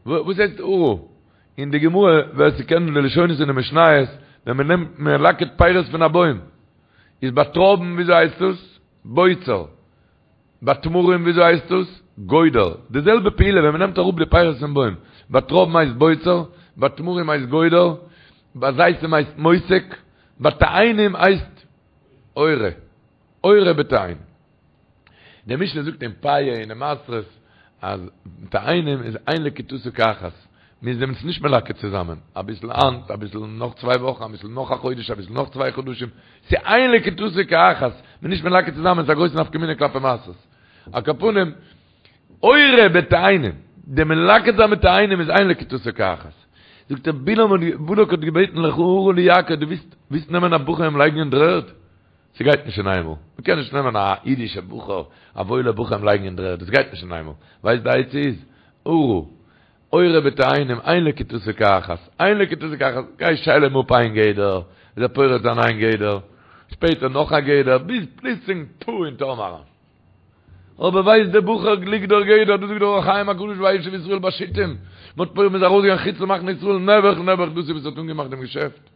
Speaker 1: וואס הייסט ארה? אין די גמרא, ווער ס'קען די לשונות אין די משניות, ווען מ'נעמט מלקט פירות פון א בוים, איז ביי טרויבן וויאזוי הייסט עס? בוצר. ביי תמרים וויאזוי הייסט עס? גודר. די זעלבע פעולה ווען מ'נעמט אראפ די פירות פון בוים, ביי טרויבן הייסט בוצר, ביי תמרים הייסט גודר, ביי זיתים הייסט מוסק, ביי תאנים הייסט עורה. עורה בתאנים. די משנה זאגט אין פאה און אין מעשרות אז תאנים איז אין לקיטתן כאחת, מ'איז דעמאלטס נישט מלקט צוזאמען, אביסל היינט, אביסל נאך צוויי וואכן, אביסל נאך א חודש, אביסל נאך צוויי חדשים, ס'איז אין לקיטתן כאחת, מ'איז נישט מלקט צוזאמען, ס'איז א גרויסע נפקא מינה כלפי מעשרות. על כל פנים, עורה בתאנים, די מלקט זיין מיט תאנים איז אין לקיטתן כאחת. זאגט ער, בלעם האט, בלק האט געבעטן לכה ארה לי יעקב, דו ווילסט, ווילסט נעמען א בחור אים לייגן אין דר'ערד? ס'גייט נישט אין איינמאל. מ'קען נישט נעמען א אידישע בחור, א וואוילע בחור אים לייגן אין דר'ערד, דאס גייט נישט אין איינמאל. ווייסט די עצה איז? ארה, עורה בתאנים, אין לקיטתן כאחת, אין לקיטתן כאחת, גיי שייל אים אפ איין גדר, איז ער פורץ זיין איין גדר, שפעטער נאך א גדר, ביז פלוצלינג פו אין תהום אריין. אבער ווייסט דער בחור לגדור גדר, דאס זאגט דער אור החיים הקדוש וישב ישראל בשיטים, מ'האט פורץ מ'איז ארויסגעגאנגען חוץ למחנה ישראל, נעבעך נעבעך דאס איז וואס האט אנגעמאכט דעם געשעפט.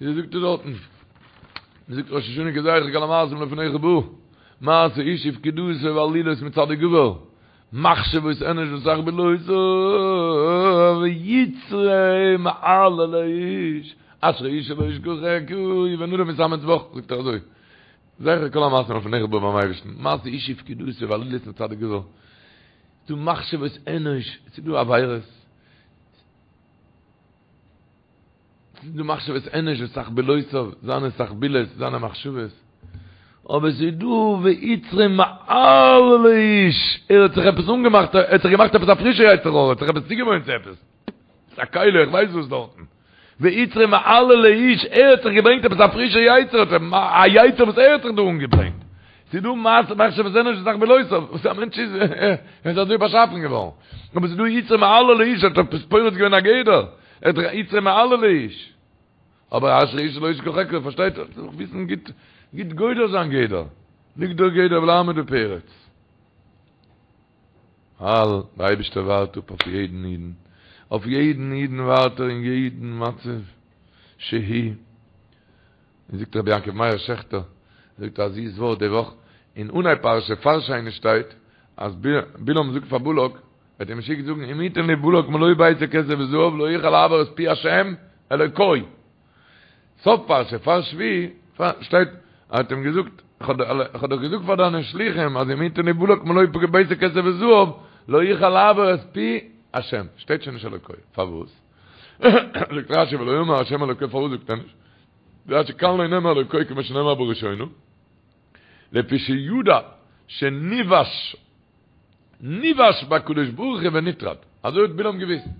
Speaker 1: ווי זאגט ער דארטן? מ'זאגט ראש השנה כי זכר כל המעשים לפניך בא, מעשה איש ופקודתו ועלילות מצדיק גבר, מחשבות אנוש ותחבולותיו ויצרו מעללי איש, אשרי איש שלא ישכחך ובן אדם יתאמץ בך, זאגט ער אזוי, זכר כל המעשים לפניך בא ביים אייבערשטן, מעשה איש ופקודתו ועלילות מצדיק גבר, ס'דא מחשבות אנוש, ס'דא עבירות, ס'איז דא מחשבות אנוש ותחבולותיו, זיינע תחבולות, זיינע מחשבות. אבער ס'איז דא ויצרו מעללי איש, ער האט זיך עפעס אנגעמאכט, ער האט זיך געמאכט עפעס א פרישע יצר הרע, ער האט זיך עפעס צוגעוואוינט צו עפעס. ס'איז א כלי, איך ווייס וואס דארטן. ויצרו מעללי איש, ער האט זיך געברענגט עפעס א פרישע יצר, א יצר וואס ער האט זיך דא אנגעברענגט. ס'איז דא מחשבות אנוש ותחבולותיו, וואס א מענטש איז, ער איז אזוי באשאפן געווארן. אבער ס'איז דא יצרו מעללי איש, ער האט עפעס פורץ געווען א גדר, ער האט זיך יצרו מעללי איש. אבער אשרי איש שלא ישכחך, פארשטייט זיך, זיך וויסן גוט, גוט גודר זיין גדר, לגדור גדר ולעמוד בפרץ. ווייל דער אייבערשטער ווארט אפ אויף יעדן אידן, אויף יעדן אידן ווארט ער אין יעדן מצב שהי'. און זאגט רבי יעקב מאיר שעכטער, זאגט א זיס ווארט די וואך, אין אנהייב פרשה פאר שני שטייט אז בלעם זאגט פאר בלק, ער האט אים געשיקט זאגן אם יתן לי בלק מלא ביתו כסף וזהב לא אוכל לעבור את פי השם אלוקי. סוף פרשה פאר שביעי שטייט ער האט אים געזאגט איך האב דאך געזאגט פאר דיינע שלוחים אז אם יתן לי בלק מלא ביתו כסף וזהב לא אוכל לעבור את פי השם, שטייט שוין נישט אלוקי, פארוואס? זאגט רשי ולא אמר השם אלוקי פארוואס זאגט ער נישט? רשי כאן לא נאמר אלוקי כמו שנאמר בראשונה, לפי שידע שניוש ניוש בקדוש ברוך הוא ונטרד, אזוי האט בלעם געוויסט, ער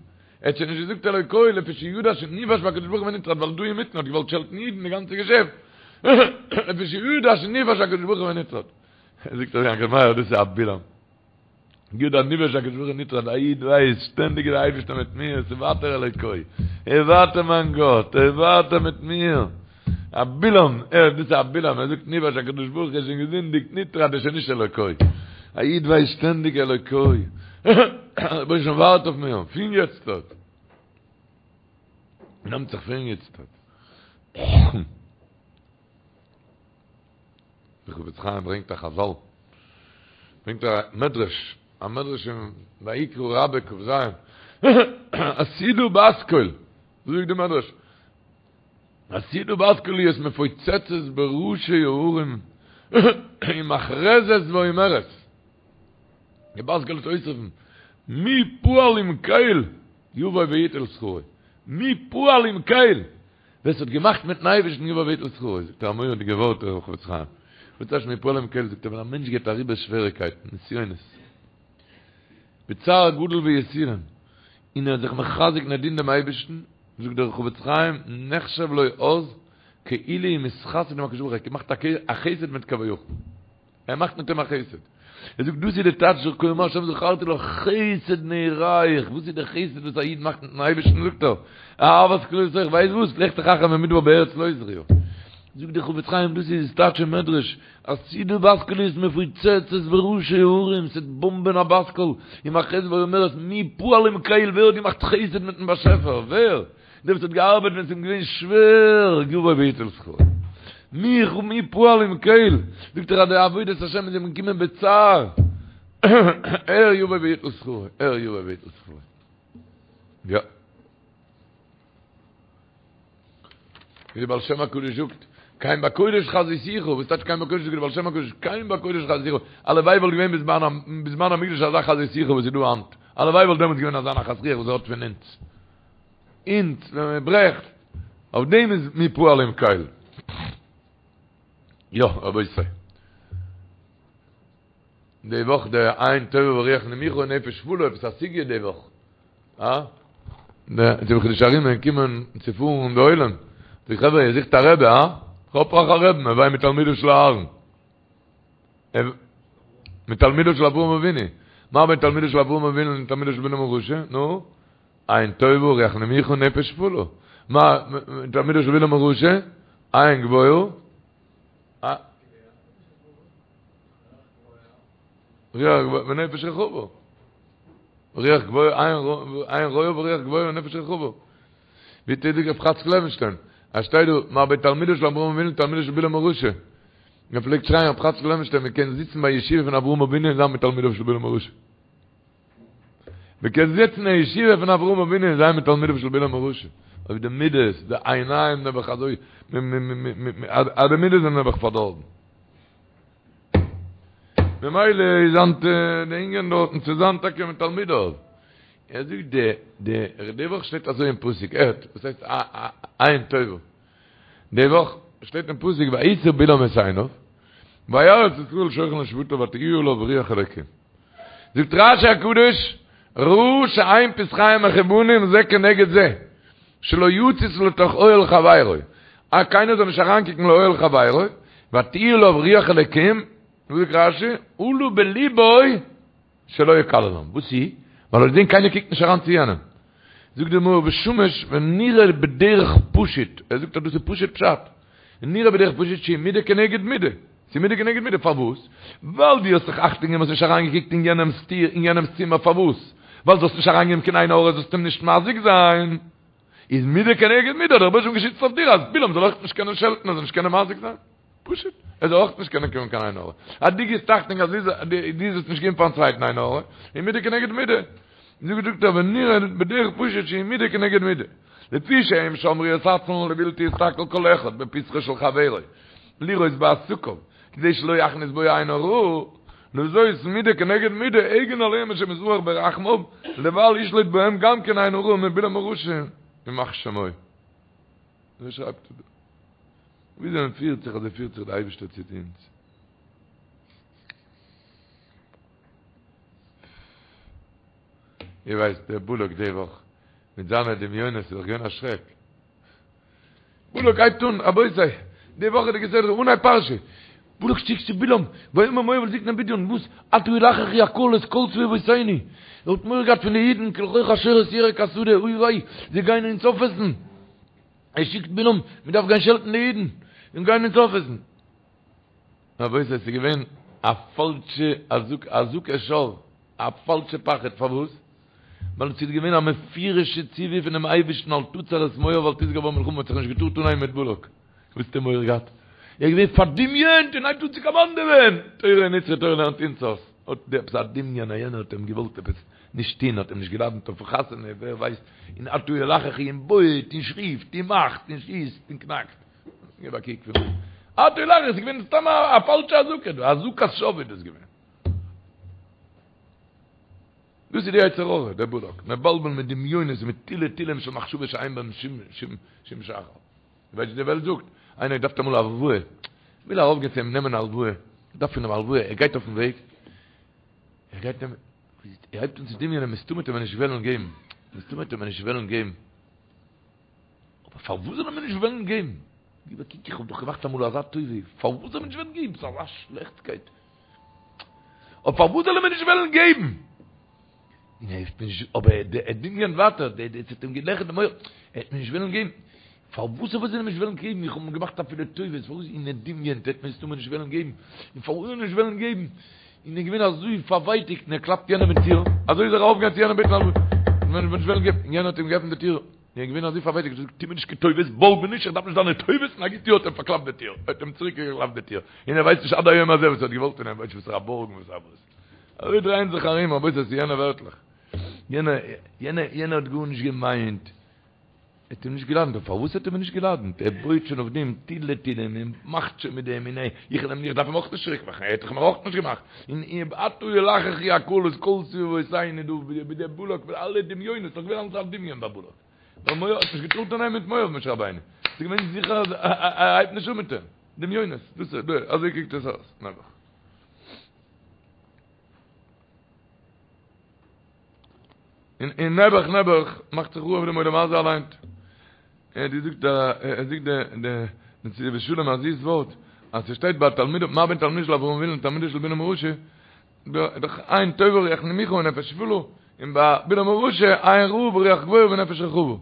Speaker 1: האט שוין נישט געזאגט אלוקי לפי שידע שניוש בקדוש ברוך הוא ונטרד, ווייל דא אינמיטן האט געוואלט שעלטן אידן די גאנצע געשעפט, לפי שידע שניוש בקדוש ברוך הוא ונטרד, זאגט ר' יעקב מאיר דאס איז א בלעם. ידע ניוש בקדוש ברוך הוא ונטרד, א איד ווייסט, שטענדיג איז דער אייבערשטער מיט מיר, ס'איז ווייטער אלוקי, ער איז ווייטער מיין גאט, ער איז ווייטער מיט מיר. א בלעם, ער, דאס איז א בלעם, ער זאגט ניוש בקדוש ברוך הוא איז שוין געזינדיגט, נטרד איז שוין נישט אלוקי. א איד ווייסט שטענדיג אלוקי, רבונו של עולם ווארט אויף מיר, פון יעצט. נעמט זיך פון יעצט. דער חפץ חיים ברענגט א חזל, ברענגט א מדרש, א מדרש אין ויקרא רבה כ"ז, עתידה בת קול, אזוי זאגט די מדרש, עתידה בת קול להיות מפוצצת בראשי ההרים ומכרזת ואומרת. די בת קול וועט אויסרופן, מי פעל עם קל יבוא ויטול שכרו, מי פעל עם קל, ווער ס'האט געמאכט מיטן אייבערשטן יבוא ויטול שכרו, זאגט ער א מורא'דיגע ווארט דער חפץ חיים, וואס טייטש מי פעל עם קל, זאגט ער ווען א מענטש גייט אריבער שוועריקייטן, נסיונות, בצער גדול ויסורים, און ער איז זיך מחזק און ער דינט דעם אייבערשטן, זאגט דער חפץ חיים, נחשב לו אז כאילו הוא מתחסד עם הקדוש ברוך הוא, ער האט געמאכט א חסד מיט כביכול. ער מאכט מיט אים א חסד. ער זאגט דאס איז די טייטש כה אמר השם זכרתי לך חסד נעוריך, וואס איז די חסד וואס א איד מאכט מיטן אייבערשטן זאגט ער, אהבת כלולותיך, ווייסט וואס, לכתך אחרי במדבר בארץ לא זרועה. זאגט דער חפץ חיים דאס איז טייטש אין מדרש, עתידה בת קול להיות מפוצצת בראשי הרים, ס'וועט באמבען א בת קול, ומכרזת ואומרת מי פעל עם קל, ווער האט געמאכט חסד מיטן באשעפער, ווער? דער וואס האט געארבעט ווען עס איז אים געווען שווער, יבוא ויטול שכרו. מי מי פעל עם קל, זאגט ער אז די עבודת השם איז אים געקומען בצער, ער יבוא ויטול שכרו, ער יבוא ויטול שכרו. יא. ווי דער בעל שם הקדוש זאגט, כן בקודש חזיתיך, וואס טייטש כן בקודש זאגט דער בעל שם הקדוש, כן בקודש חזיתיך, הלוואי וואלט געווען בזמן המקדש אזא חזיתיך וואס איז דא היינט, הלוואי וואלט דעמאלטס געווען אזא נחת רוח וואס ער האט פון אונז. אונז ווען מען ברעכט, אויף דעם איז מי פעל עם קל. יא רבותי. די וואך די עין טובה ורוח נמוכה און נפש שפלה, עפעס א סוגיא די וואך. אה? די חידושי הרי"ם קומען צו פארן די עולם. די חברה איר זוכט א רבי, הא? כ'האב אייך א רבי'ן, הוי מתלמידיו של אהרן. מתלמידיו של אברהם אבינו. מה בין תלמידיו של אברהם אבינו לתלמידיו של בלעם הרשע? נו? עין טובה רוח נמוכה נפש שפלה. מה תלמידו של בלעם הרשע? עין גבוהה. רוח גבוהה ונפש רחבה. רוח גבוהה, עין רואה ורוח גבוהה ונפש רחבה. ווי טוט רב חאצקל לעווינשטיין? אז שטייט דא, מה בין תלמידו של אברהם אבינו לתלמידו של בלעם הרשע. מען פלעגט שרייען רב חאצקל לעווינשטיין מען קען זיצן ביי ישיבה פון אברהם אבינו און זיין מתלמידיו של בלעם הרשע. מען קען זיצן אין ישיבה פון אברהם אבינו און זיין מתלמידיו של בלעם הרשע. אויב די מידות, די עיניים נעבעך אזוי, אז די מידות זענען נעבעך פארדארבן. ממילא איז היינט די ענין דארטן צו זיין טאקע מתלמידיו. ער זאגט די די די וואך שטייט אזוי אין פסוק, הערט וואס הייסט עין טובה. די וואך שטייט אין פסוק וישא בלעם את עיניו וירא את ישראל שוכן לשבטיו ותהי עליו רוח אלוקים. זאגט רשי הקדוש, ראה שאין פתחיהם מכוונים זה כנגד זה, שלא יציץ לתוך אוהל חברו, אז קיינער זאל נישט אריינקוקן לאוהל חברו, ותהי עליו רוח אלוקים, זאגט רשי, עלה בלבו שלא יקללם, וואס איז? ווייל ער האט געזען קיינער קוקט נישט אריין צו יענעם. זאגט די מאור ושמש ונראה בדרך פשוט, ער זאגט אז דאס איז פשוט פשט, נראה בדרך פשוט שהיא מידה כנגד מידה, ס'איז מידה כנגד מידה, פארוואס? ווייל דו האסט זיך אכטונג געגעבן האסט נישט אריינגעקוקט אין יענעמ'ס טיר, אין יענעמ'ס צימער, פארוואס? ווייל זאלסט נישט אריינגיין קיין עין הרע זאלסט אים נישט מזיק זיין, איז מידה כנגד מידה האט דער רבוש"ע געשיצט אויף דיר אז בלעם זאל אויך נישט קענען שעלטן ער זאל נישט קענען מזיק זיין. פשוט, ער זאל אויך נישט קענען קומען קיין עין הרע. אז דו גיבסט אכטונג אז דו זאלסט נישט געבן פארן צווייטן עין הרע, איז מידה כנגד מידה. זאגט זאגט ער ונראה בדרך פשוט שהיא מידה כנגד מידה. לפי שהם שמרו את עצמם לבלתי יסתכל כל אחד בפתחו של חברו לראות בעסקיו כדי שלא יכניס בו עין הרע, לזאת מידה כנגד מידה הגן עליהם השם יתברך ברחמיו לבל ישלוט בהם גם כן עין הרע מבלעם הרשע ימח שמו. אזוי שרייבט ער דא. וויאזוי מען פירט זיך אזוי פירט זיך די אייבערשטער צו אונז. איר ווייסט דער בלק די וואך מיט זיינע דמיונות איז דאך געווען א שרעק. בלק הייבט אן, רבותי, די וואכעדיגע סדרה אנהייב פרשה, בלק שיקט צו בלעם, ויאמר מואב אל זקני מדין, וואס? עתה ילחכו הקהל את כל סביבותינו. ער האט מורא געהאט פון די אידן, כלחוך השור את ירק השדה, אוי וויי, זיי גייען אונז אויפעסן. ער שיקט בלעם, מען דארף גיין שעלטן די אידן, זיי גייען אונז אויפעסן. רבותי, עס איז געווען א פאלשע אזעקת שוא, א פאלשע פחד, פארוואס? ווייל עס איז געווען א מפורש'ע ציווי פונעם אייבערשטן אל תצר את מואב ואל תתגר בם מלחמה, מען האט זיך נישט געטארט אנהייבן מיט בלק. וואס האט ער מורא געהאט? ער איז געווען פארדמיונט און הייבט אן צו קאמאנדעווען! תורה נצחי תורה לערנט אונז אויס. האט ער עפעס א דמיון אז יענער האט אים געוואלט עפעס נישט טון, האט אים נישט געלאדענט אויפן חתונה, ווער ווייסט, און עתה ילחכו און בויעט און שריפט און מאכט און שיסט און קנאקט. געב א קוק פון עתה ילחכו, ס'איז געווען סתם א פאלשע אזעקה דא, אזעקת שוא איז דאס געווען. דאס איז די יצר הרע, דער בלק, מבלבל מיט דמיונות מיט תילי תילים של מחשבות שאין בהם שום שחר. ווייסט ווי די וועלט זאגט, איינער דארף אמאל א הלוואה, וויל ארויפגיין צו אים נעמען א הלוואה, דארף פון אים א הלוואה, ער גייט אויפן וועג, ער גייט נעמען, ער הייבט אן צו דמיונ'ען, מסתמא וועט ער מיר נישט וועלן געבן, מסתמא וועט ער מיר נישט וועלן געבן. אבער פארוואס זאל ער מיר נישט וועלן געבן? גיב א קוק, איך האב דאך געמאכט אמאל אזא טובה, פארוואס זאל ער מיר נישט וועלן געבן? ס'איז אזא שלעכטקייט. אבער פארוואס זאל ער מיר נישט וועלן געבן? און ער האט נישט, אבער ער דמיונ'ט ווייטער, דער ס'האט אים געלעכערט די מח, ער וועט מיר נישט וועלן געבן. פארוואס זאל ער מיר נישט וועלן געבן? איך האב אים געמאכט אפילו טובות, פארוואס? און ער דמיונ'ט, ער וועט מיר מסתמא נישט וועלן געבן. און פארוואס זאל ער נישט וועלן געבן? און ער איז געווען אזוי פארווייטיגט, און ער קלאפט יענעם אין טיר, אזוי איז ער ארויפגעגאנגען צו יענעם בעטן הלוואה, און נישט וועלן געבן, און יענער האט אים געעפנט די טיר, און ער איז געווען אזוי פארווייטיגט, ער האט געזאגט, טו מיר נישט קיין טובות, בארג מיר נישט, איך דארף נישט דיינע טובות, און א גוט יאר האט אים פארקלאפט די טיר, ער האט אים צוריק געקלאפט די טיר, און ער ווייסט נישט עד היום הזה וואס ער האט געוואלט פון אים, ווייסט נישט וואס ער א בארגן וואס א וואס. אזוי דרייען זיך ארום, רבותי, עס איז יענע ווערטלעך, יענער, יענער, יענער האט גארנישט געמיינט. ער האט אים נישט געלאדענט, אבער פארוואס האט ער מיר נישט געלאדענט? ער בויעט שוין אויף דעם תילי תילים און מאכט שוין מיט דעם און איך וויל אים איך דארף אים אויך נישט צוריק מאכן, ער האט דאך מיר אויך נישט געמאכט, און עתה ילחכו הקהל את כל סביבותינו דא ווי דער בלק מיט אלע דמיונות, ס'איז דאך געווען אלס א דמיון ביי בלק, ווייל מואב האט נישט געטארט אנהייבן מיט מואב משה רבינו, ס'איז געווען זיכער אז ער הייבט נישט אן מיט אים, דמיונות, דאס איז, אזוי קוקט עס אויס, נעבעך. און און נעבעך נעבעך מאכט זיך חרוב דעם עולם הזה אליין. ער האט געזאגט א ער זאגט די די נתיבות שלום א זיס ווארט אז ס'שטייט ביי תלמידו מה בין תלמידו של אברהם אבינו לתלמידו של בלעם הרשע דאך עין טובה רוח נמוכה ונפש שפלה און ביי בלעם הרשע עין רעה ורוח גבוהה ונפש רחבה.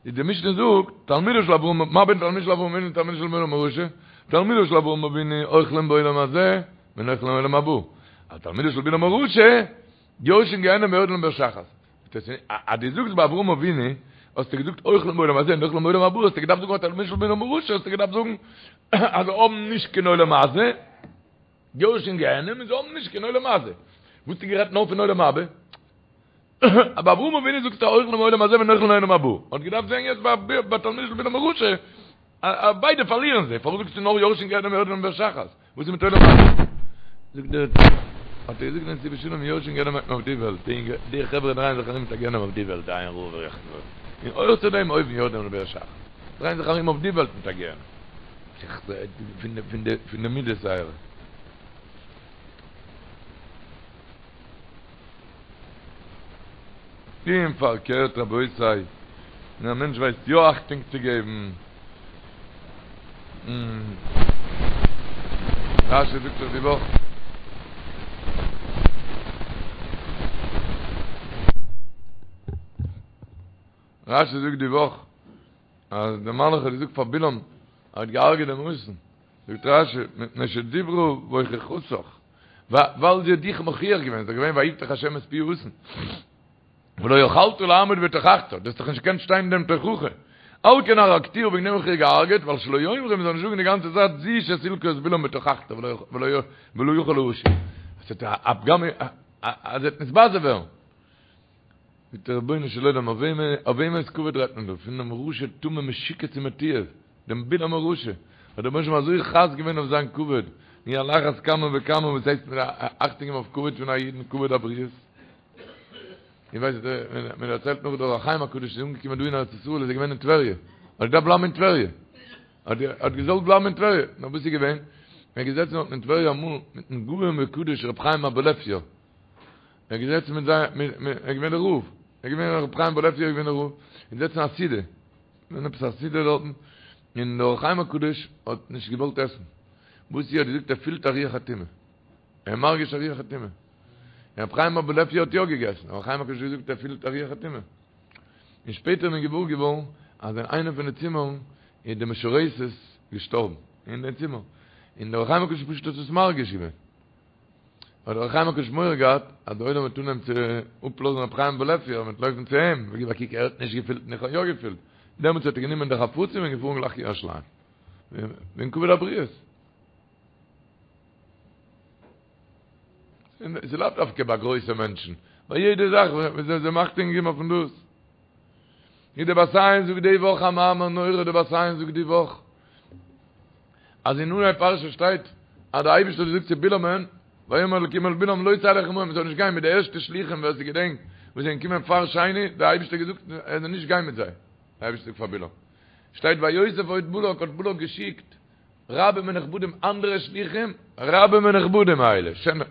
Speaker 1: איז די משנה זאגט תלמידו של אברהם מה בין תלמידו של אברהם אבינו לתלמידו של בלעם הרשע תלמידו של אברהם אבינו אוכלים בעולם הזה ונוחלים עולם הבא. א תלמידו של בלעם הרשע יורשין גיהנם ויורדין לבאר שחת. אז דו זאגסט ביי אברהם אבינו, האסטו געזאגט אוכלים בעולם הזה און נוחלים בעולם הבא, האסטו געדארפט זאגן ביי תלמידו של בלעם הרשע, האסטו געדארפט זאגן אז זיי האבן נישט קיין עולם הזה, יורשין גיהנם און זיי האבן נישט קיין עולם הזה. וואס האסטו גערעדט נאר פון עולם הבא? ביי אברהם אבינו זאגסטו אוכלים בעולם הזה ונוחלים עולם הבא. האט געדארפט זיין יעצט ביי תלמידו של בלעם הרשע, ביידע פארלירן זיי, פארוואס זאגסטו נאר יורשין גיהנם ויורדין לבאר שחת? וואס איז מיט עולם הבא? זאגט דער האט ער געזאגט דעם נתיבות שלום יורשין גיהנם מיינט מען אויף די וועלט, די חברה דרייען זיך ארום מיט א גיהנם אויף די וועלט, די עין רעה ורוח גבוהה, און אויך צו דעם אויבן יורדין לבאר שחת, דרייען זיך ארום אויף די וועלט מיט א גיהנם, פון די מידות זייערע. און פארקערט רבותי, ווען א מענטש ווייסט יא אכטונג צו געבן, רשי זאגט דאך די וואך, רשי זאגט די וואך, אז דער מלאך האט געזאגט פאר בלעם, ער האט געהארגעט דעם אתון, זאגט רשי, מפני שדיברה והוכיחתך, ווייל זי האט דיך מוכיח געווען, ס'איז דאך געווען ויפתח השם את פי האתון, ולא יכלת לעמוד בתוכחתה, דו האסט דאך נישט געקענט שטיין אין דעם תוכחה, על כן הרגתיה וועגן דעם האב איך איר געהארגעט, ווייל שלא יאמרו מ'זאל נישט זאגן די גאנצע צייט זו שסילקה את בלעם בתוכחתה ולא יכול להשיב. עס האט א פגם אז ער וועט נתבזה ווערן. זאגט דער רבונו של עולם, אויף וועמענס כבוד רעדט מען דא? פון דעם רשע טמא משוקץ ומתועב, דעם בלעם הרשע, האט דער רבונו של עולם אזוי חס געווען אויף זיין כבוד, און על אחת כמה וכמה וואס הייסט מען אכטונג געבן אויף כבוד פון א אידן, כבוד הבריות. איך ווייס מען דערציילט נאך דער אור החיים הקדוש איז אנגעקומען דא אין ארץ ישראל איז ער געווען אין טבריה, האט געדארפט בלייבן אין טבריה, האט האט געזאלט בלייבן אין טבריה, נאר וואס איז געווען? ער איז געזעצן דארט אין טבריה אמאל מיטן גאון וקדוש רבי חיים אבולעפיא, ער איז געזעצן מיט זיי, ער איז געווען דער רב, ער איז געווען רבי חיים אבולעפיא איז געווען דער רב, און זעצן א סעודה, געווען עפעס א סעודה דארטן, און דער אור החיים הקדוש האט נישט געוואלט עסן, וואס ער האט געזאגט ער פילט א רוח הטומאה, ער איז מרגיש א רוח הטומאה, און רבי חיים אבולעפיא האט יא געגעסן, אור החיים הקדוש האט געזאגט ער פילט א רוח הטומאה, און שפעטער איז מען געוואר געווארן אז אין איינע פון די צימערן איז די משרתת געשטארבן, אין די צימער, און דער אור החיים הקדוש פשוט האט עס מרגיש געווען. האט דער אור החיים הקדוש מורא געהאט אז דער עולם וועט אנהייבן צו אפלאזן רבי חיים אבולעפיא און מ'וועט לויפן צו אים, וגיב א קוק ער האט נישט געפילט און איך האב יא געפילט, דעמאלטס האט ער גענומען די חפצים און געפארן גלייך ירושלים, וועגן כבוד הבריות. ס'איז לאו דווקא ביי גרויסע מענטשן, ביי יעדע זאך וואס זיי אכטונג געבן אויפן דאס. ווי דער בת עין זאגט די וואך א מאמר נורא, דער בת עין זאגט די וואך, אז אין אנהייב פרשה שטייט אז דער אייבערשטער האט געזאגט צו בלעמ'ן. ויאמר אלקים אל בלעם לא תלך עמהם, מ'זאל נישט גיין מיט די ערשטע שלוחים ווער ס'געדענקט וואס זענען געקומען פאר שני, דער אייבערשטער האט געזאגט ער זאל נישט גיין מיט זיי, דער אייבערשטער זאגט פאר בלעם, שטייט ויוסף עוד בלק האט בלק געשיקט רבים ונכבדים אנדערע שלוחים רבים ונכבדים מאלה, שענער,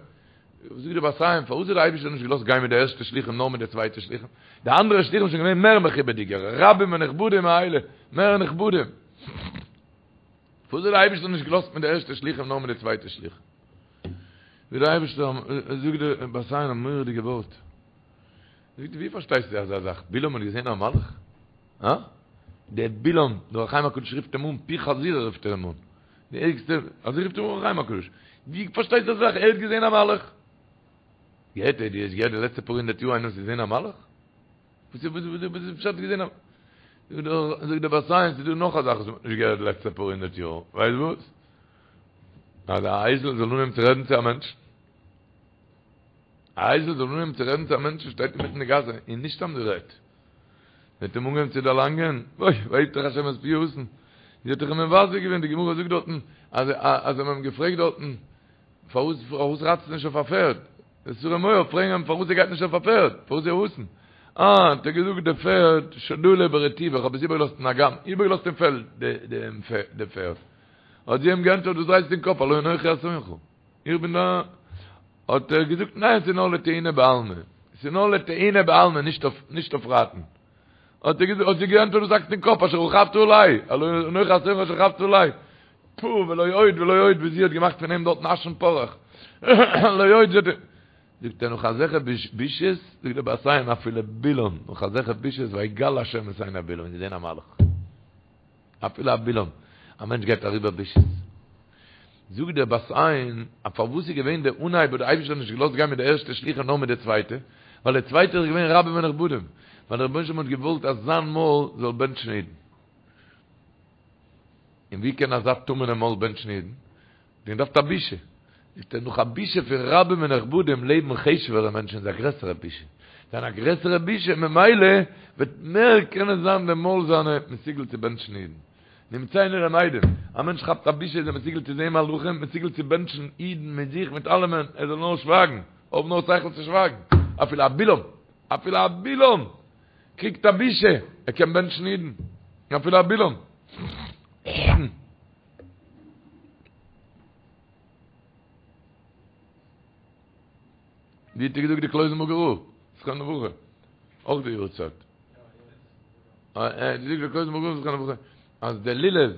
Speaker 1: זאגט דער בת עין פארוואס האט דער אייבערשטער נישט געלאזט גיין מיט די ערשטע שלוחים נאר מיט די צווייטע שלוחים, די אנדערע שלוחים זענען געווען מער מכובד'יגער, רבים ונכבדים מאלה, מער נכבדים. פארוואס האט דער אייבערשטער נישט געלאזט מיט די ערשטע שלוחים נאר מיט די צווייטע שלוחים? ווי דער אייבערשטער זאגט דער בת עין א מורא'דיגע ווארט, זאגט ווי פארשטייסטו אזא זאך, בלעם האט געזען א מלאך? הא? דער בלעם, דער אור החיים הקדוש רופט אים אן פי חזיר רופט ער אים אן, די ערגסטע, אזוי רופט אים אור החיים הקדוש, ווי פארשטייסטו אזא זאך, ער האט געזען א מלאך? געהערט דו האסט געהערט די לעצטע פאר הונדערט יאר איינער האט געזען א מלאך? וואס איז וואס איז פשט געזען א זאגט דער בת עין ס'איז דא נאך א זאך וואס מ'האט נישט געהערט די לעצטע פאר הונדערט יאר, ווייסט וואס? אז א אייזל זאל אנהייבן צו רעדן צו א מענטש. א אייזל זאל אנהייבן צו רעדן צו א מענטש שטייט אינמיטן די גאס און נישט סתם גערעדט. זי האט אים אנגעהויבן צו דערלאנגען, אוי, ויפתח השם את פי האתון. זי האט דאך אים מבזה געווען, די גמרא זאגט דארטן אז אז זיי האבן אים געפרעגט דארטן פארוואס פארוואס רייטסטו נישט אויף א פערד? די שרי מואב פרעגן אים פארוואס ער גייט נישט אויף א פערד, פארוואס איז ער אתון? אה, האט ער געזאגט די פערד שדאה ברטיבא, איך האב עס איבערגעלאזט אין אגם, איבערגעלאזט אין פעלד די פערד. האט זי אים געענטפערט וואס דרייסטו אין קאפ, הלא אנכי אתונך, איך בין דא. האט ער געזאגט ניין ס'איז נאר לטעינה בעלמא, ס'איז נאר לטעינה בעלמא נישט אויף נישט אויף רייטן. האט ער געזאגט, האט זי געענטפערט וואס האקסטו אין קאפ, אשר רכבת עלי, הלא אנכי אתונך אשר רכבת עלי. פו, ולא עוד ולא עוד, ווי זי האט געמאכט פון אים דארטן אש און פארעך. לא עוד, זי האט זאגט ער נאך אזעלכע בושות, זאגט דער בת עין אפילו בלעם, נאך אזעלכע בושות, ויגל השם את עיני בלעם, געזען א מלאך. אפילו א בלעם, א מענטש גייט אריבער בושות. זאגט דער בת עין, אז פארוואס איז געווען דער אנהייב האט דער אייבערשטער נישט געלאזט גיין מיט די ערשטע שלוחים נאר מיט די צווייטע, ווייל די צווייטע איז געווען רבים ונכבדים, ווייל דער רבונו של עולם האט געוואלט אז זיין מויל זאל בענטשן אידן. און ווי קען אזא טמא'נע מויל בענטשן אידן? מען דארף א בושה. זאגט ער, נאך א בושה פון רבים ונכבדים לעבן חשוב'ערע מענטשן איז א גרעסערע בושה. זיין א גרעסערע בושה, ממילא וועט מער קענען זיין די מויל זיינע מסוגל צו בענטשן אידן. נמצאנו למדים, א מענטש כאפט א בושה איז ער מסוגל צו זען מלאכים, מסוגל צו בענטשן אידן מיט זיך מיט אלעמען, ער זאל נאר שווייגן, האב נאר שכל צו שווייגן. אפילו א בלעם, אפילו א בלעם קריגט א בושה, ער קען בענטשן אידן. אפילו א בלעם. ווי האט ער געזאגט די קלויזענבורגער רב, זכרונו לברכה, אויך די יארצייט. ער האט געזאגט די קלויזענבורגער רב זכרונו לברכה, אז די לולב,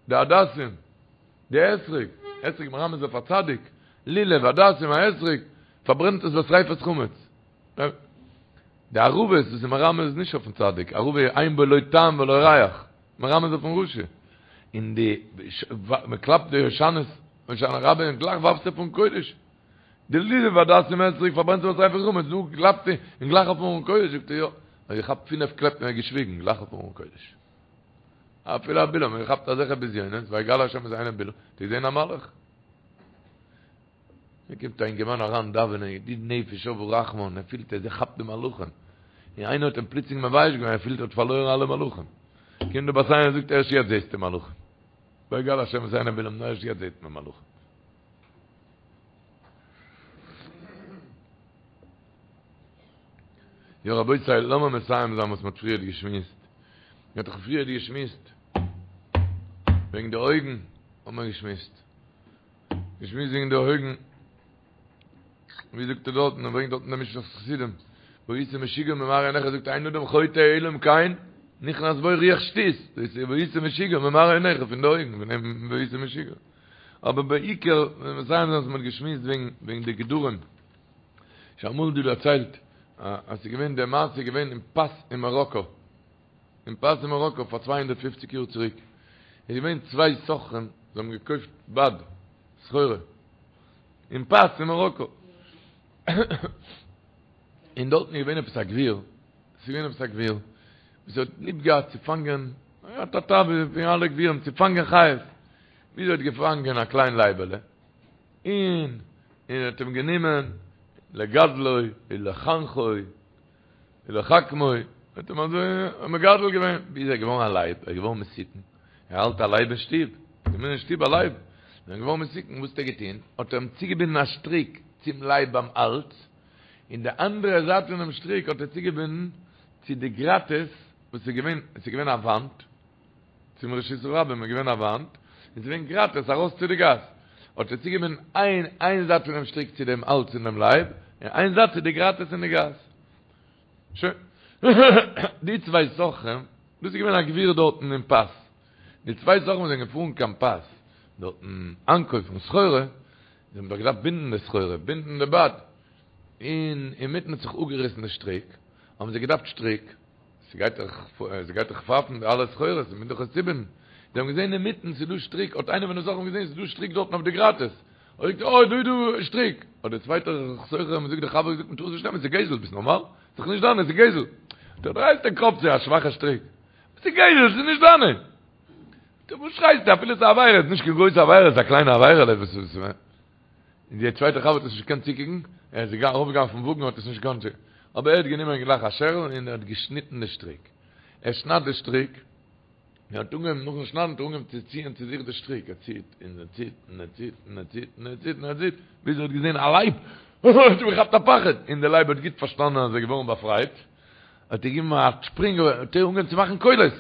Speaker 1: די הדסים, די אתרוג, אתרוג מרמז אויף א צדיק, לולב, הדסים, א אתרוג, פארברענט עס בשריפת חמץ. די ערבות וואס איז מרמז נישט אויפן צדיק, ערבה אין בו לא טעם ולא ריח, מרמז אויפן רשע, און די מען קלאפט די הושענות הושענא רבה און גלייך ווארפסטו אויפן ארון קודש, די לולב הדסים אתרוג פארברענט זיך בשריפת חמץ, דא קלאפט און גלייך אויפן ארון קודש, זאגט ער יא, האט געכאפט פינף קלעפ און ער האט געשוויגן, גלייך אויפן ארון קודש. אפילו א בלעם האט געכאפט אזעלכע בזיונות, ויגל השם את עיני בלעם, האט ער געזען א מלאך. מיר קומט א אינגערמאן אריין דאווענען ידיד נפש אב הרחמן, ער פילט אז ער כאפט די מלאכים, און איינער האט אים פלוצלינג מבייש געווען, ער פילט ער האט פארלוירן אלע מלאכים, קומט די בת עין און זאגט ערשט יעצט זעסטו מלאכים, ויגל השם את עיני בלעם, נאר ערשט יעצט זעט מען מלאכים. יא רבותי, לאמיר מסיים זיין וואס מען האט פריערט געשמועסט, מען האט דאך פריערט געשמועסט וועגן די אויגן, האט מען געשמועסט. געשמועסט וועגן די אויגן, ווי זאגט ער דארטן, ער ברענגט דארטן דעם משנת חסידים, והיית משוגע ממראה עיניך, זאגט אין אדם חוטא אלא אם כן נכנס בו רוח שטות, דאס איז והיית משוגע ממראה עיניך פון די אויגן, פון דעם והיית משוגע. אבער בעיקר, ווען מיר זענען אז מען האט געשמועסט וועגן וועגן די גדרים, שוין אמאל דא דערציילט, אז ס'איז געווען די מעשה איז געווען אין פאס אין מאראקא, אין פאס אין מאראקא פאר 250 יאר צוריק איז געווען צוויי סוחרים זיי האבן געקויפט בד סחורה אין פאס אין מאראקא און דארטן איז געווען עפעס א גביר ס'איז געווען עפעס א גביר וואס האט ליב געהאט צו פאנגען ער האט א תאווה ווי אלע גבירים צו פאנגען חיות ווי ער האט געפאנגען א קליין לייבעלע און און האט אים גענומען לגדלו ולחנכו ולחכמו, האט אים אזוי מגדל געווען, ביז ער איז געווארן א לייב, ער איז געווארן מסוכן, ער האלט א לייב אין שטוב, געווען אין שטוב א לייב, זענען געווארן מסוכן, וואס האט ער געטון? האט ער אים צוגעבינדן א שטריק צום לייב ביים האלז, און די אנדערע זייט פונעם שטריק האט ער צוגעבינדן צו די גראטעס וואס איז געווען, עס איז געווען א וואנט, צום רשות הרבים איז געווען א וואנט, און ס'איז געווען גראטעס ארויס צו די גאס, האט ער צוגעבינדן איין איין זייט פונעם שטריק צו דעם האלז פון דעם לייב, און איין זייט צו די גראטעס אין די גאס. שוין. די צוויי סוחרים, דאס איז געווען א גביר דארטן אין פאס, די צוויי סוחרים וואס זענען געפארן קיין פאס דארטן איינקויפן סחורה, זיי האבן דאך געדארפט בינדן די סחורה, בינדן די בד, און אינמיטן האט זיך אפגעריסן די שטריק, האבן זיי געדארפט שטריק, ס'גייט דאך, ס'גייט דאך פייפן די אלע סחורות, מ'מוז דאך עס צובינדן. זיי האבן געזען אינמיטן ס'איז דא שטריק, האט איינער פון די סוחרים געזען ס'איז דא שטריק דארטן אויף די גראטעס, האט ער געזאגט, אוי דא איז דא שטריק! האט דער צווייטער סוחר אים געזאגט, דער חבר געזאגט, מ'טאר עס נישט נעמען, ס'איז גזל, ביסט נארמאל? ס'איז דאך נישט דיינע, ס'איז גזל! זאגט ער, דרייסט די קאפ, ס'איז א שוואכע שטריק. ס'איז גזל, ס'איז נישט דיינע! זאגט ער, וואס שרייסטו, אפילו ס'איז א עבירה, ס'איז נישט קיין גרויסע עבירה, ס'איז א קליינע עבירה'לע, וואס איז. און דער צווייטער חבר האט עס נישט געקענט צוקוקן, ער איז ארויפגעגאנגען אויפן וואגן האט עס נישט געקאנט צוקוקן, אבער ער האט גענומען גלייך א שערל און ער האט געשניטן די שטריק, ער שניידט די שטריק, און ער האט אנגעהויבן נאכן שניידן האט ער אנגעהויבן צו ציען צו זיך די שטריק, ער ציט און ער ציט און ער ציט און ער ציט און ער ציט און ער ציט, ביז ער האט געזען א לייב, האט אים געכאפט א פחד, און דער לייב האט גוט פארשטאנען אז ער איז געווארן באפרייט, האט ער געגעבן א שפרינג, האט ער אנגעהויבן צו מאכן קולות,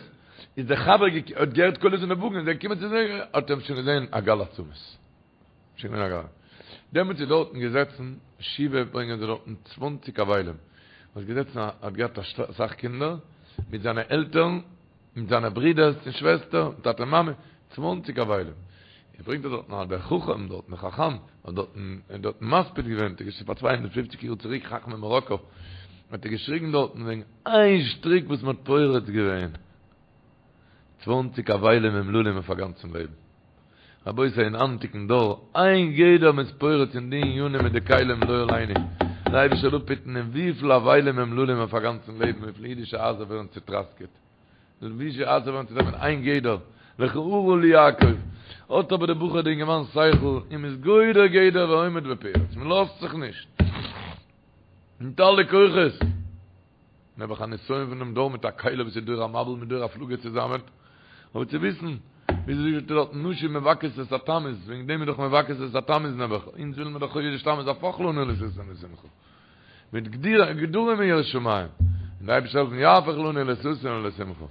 Speaker 1: איז דער חבר האט געהערט קולות אין די וואגן, איז ער געקומען צו זיי, האט ער אים שוין געזען א גל עצמות. שוין געווען א גל. דעמאלטס איז דארטן געזעצן שבעה ברענגען זיי דארטן צוואנציג אבלים, וואס געזעצן א האט געהאט אסאך קינדער, מיט זיינע עלטערן, מיט זיינע ברידערס און שוועסטער, טאטע מאמע, צוואנציג אבלים. ער ברענגט דארטן אז דער חכם דארטן דער חכם האט דארטן דארטן מספיד געווען, דאס איז פאר 250 יאר צוריק חכמי מאראקא, האט ער געשריגן דארטן וועגן איין שטריק וואס מען האט פורץ געווען, צוואנציג אבלים אומללים אויף א גאנצן לעבן. רבותי אין היינטיגן דור, איין גדר מ'איז פורץ אין די ענינים מיט די כלים לא עלינו, דער אייבערשטער זאל אפהיטן אין וויפיל אבלים אומללים אויף א גאנצן לעבן, וויפיל אידישע הייזער ווערן צוטראסקעט, אידישע הייזער ווערן צוטראסקעט איין גדר, לכה ארה לי יעקב, האט אבער דער בחור די אינגערמאן שכל און מ'איז גודר גדר ועומד בפרץ, מ'לאזט זיך נישט, מיט אלע כוחות. נעבעך א נסיון פון דעם דור מיט א כלי וואס איז דור המבול מיט דור הפלגה צוזאמען, אבער צו וויסן, וויאזוי זאגט ער דארט, נשים מבכות את התמוז, וועגן דעם איז דאך מבכות את התמוז נעבעך, אונז ווילן מיר דאך חודש תמוז הפוך לנו לששון ולשמחה, מיט גדרים אין יראת שמים, און דער אייבערשטער זאל העלפן יהפוך לנו לששון ולשמחה.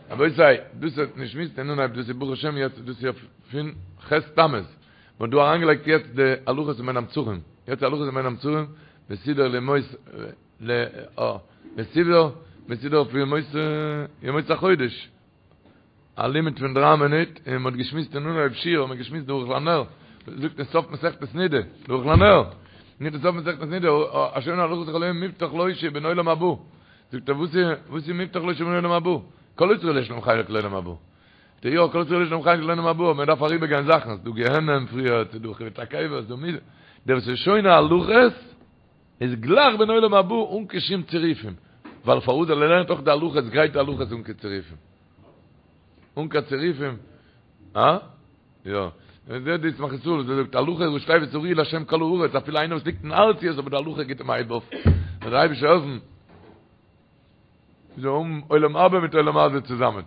Speaker 1: רבותי, דאס האט נישט מיסט אין אנהייב, דאס איז ברוך השם יעצט, דאס איז פון ח' תמוז, מען האט דא אריינגעלייגט יעצט די הלכות אין בין המצרים, יעצט הלכות אין בין המצרים, מסודר לימות ל א מסודר מסודר אויף ימות ימות החודש א לימוד פון דרײַ מינוט און מ'האט געשמועסט אין אנהויב שיעור האט מען געשמועסט דער ערוך לנר זאגט אין סוף מסכת נידה דער ערוך לנר ניט אין סוף מסכת נידה השונה הלכות כל היום מובטח לו שהוא בן עולם הבא זאגט ער וואס איז וואס איז מובטח לו שהוא בן עולם הבא כל ישראל יש להם חלק לעולם הבא די יא כל ישראל יש להם חלק לעולם הבא מען דארף אריבערגיין זאכן ס'דא גיהנם פריער ס'דא חיבוט הקבר ס'דא מידה דער וואס איז שונה הלכות איז גלייך בן עולם הבא אן קיין שום צירופים, ווייל פארוואס ווייל ער לערנט אויך די הלכות גרייט די הלכות אן קיין צירופים. אן קיין צירופים. אה? יא. און זעט די ישמח ישראל וואס ער זאגט הלכה ראשי תיבות הריעו להשם כל הארץ אפילו איינער וואס ליגט אין ארציות אבער די הלכה גיט אים א הייב אויף. זאל דער אייבערשטער העלפן. זאל האבן עולם הבא מיט עולם הזה צוזאמען.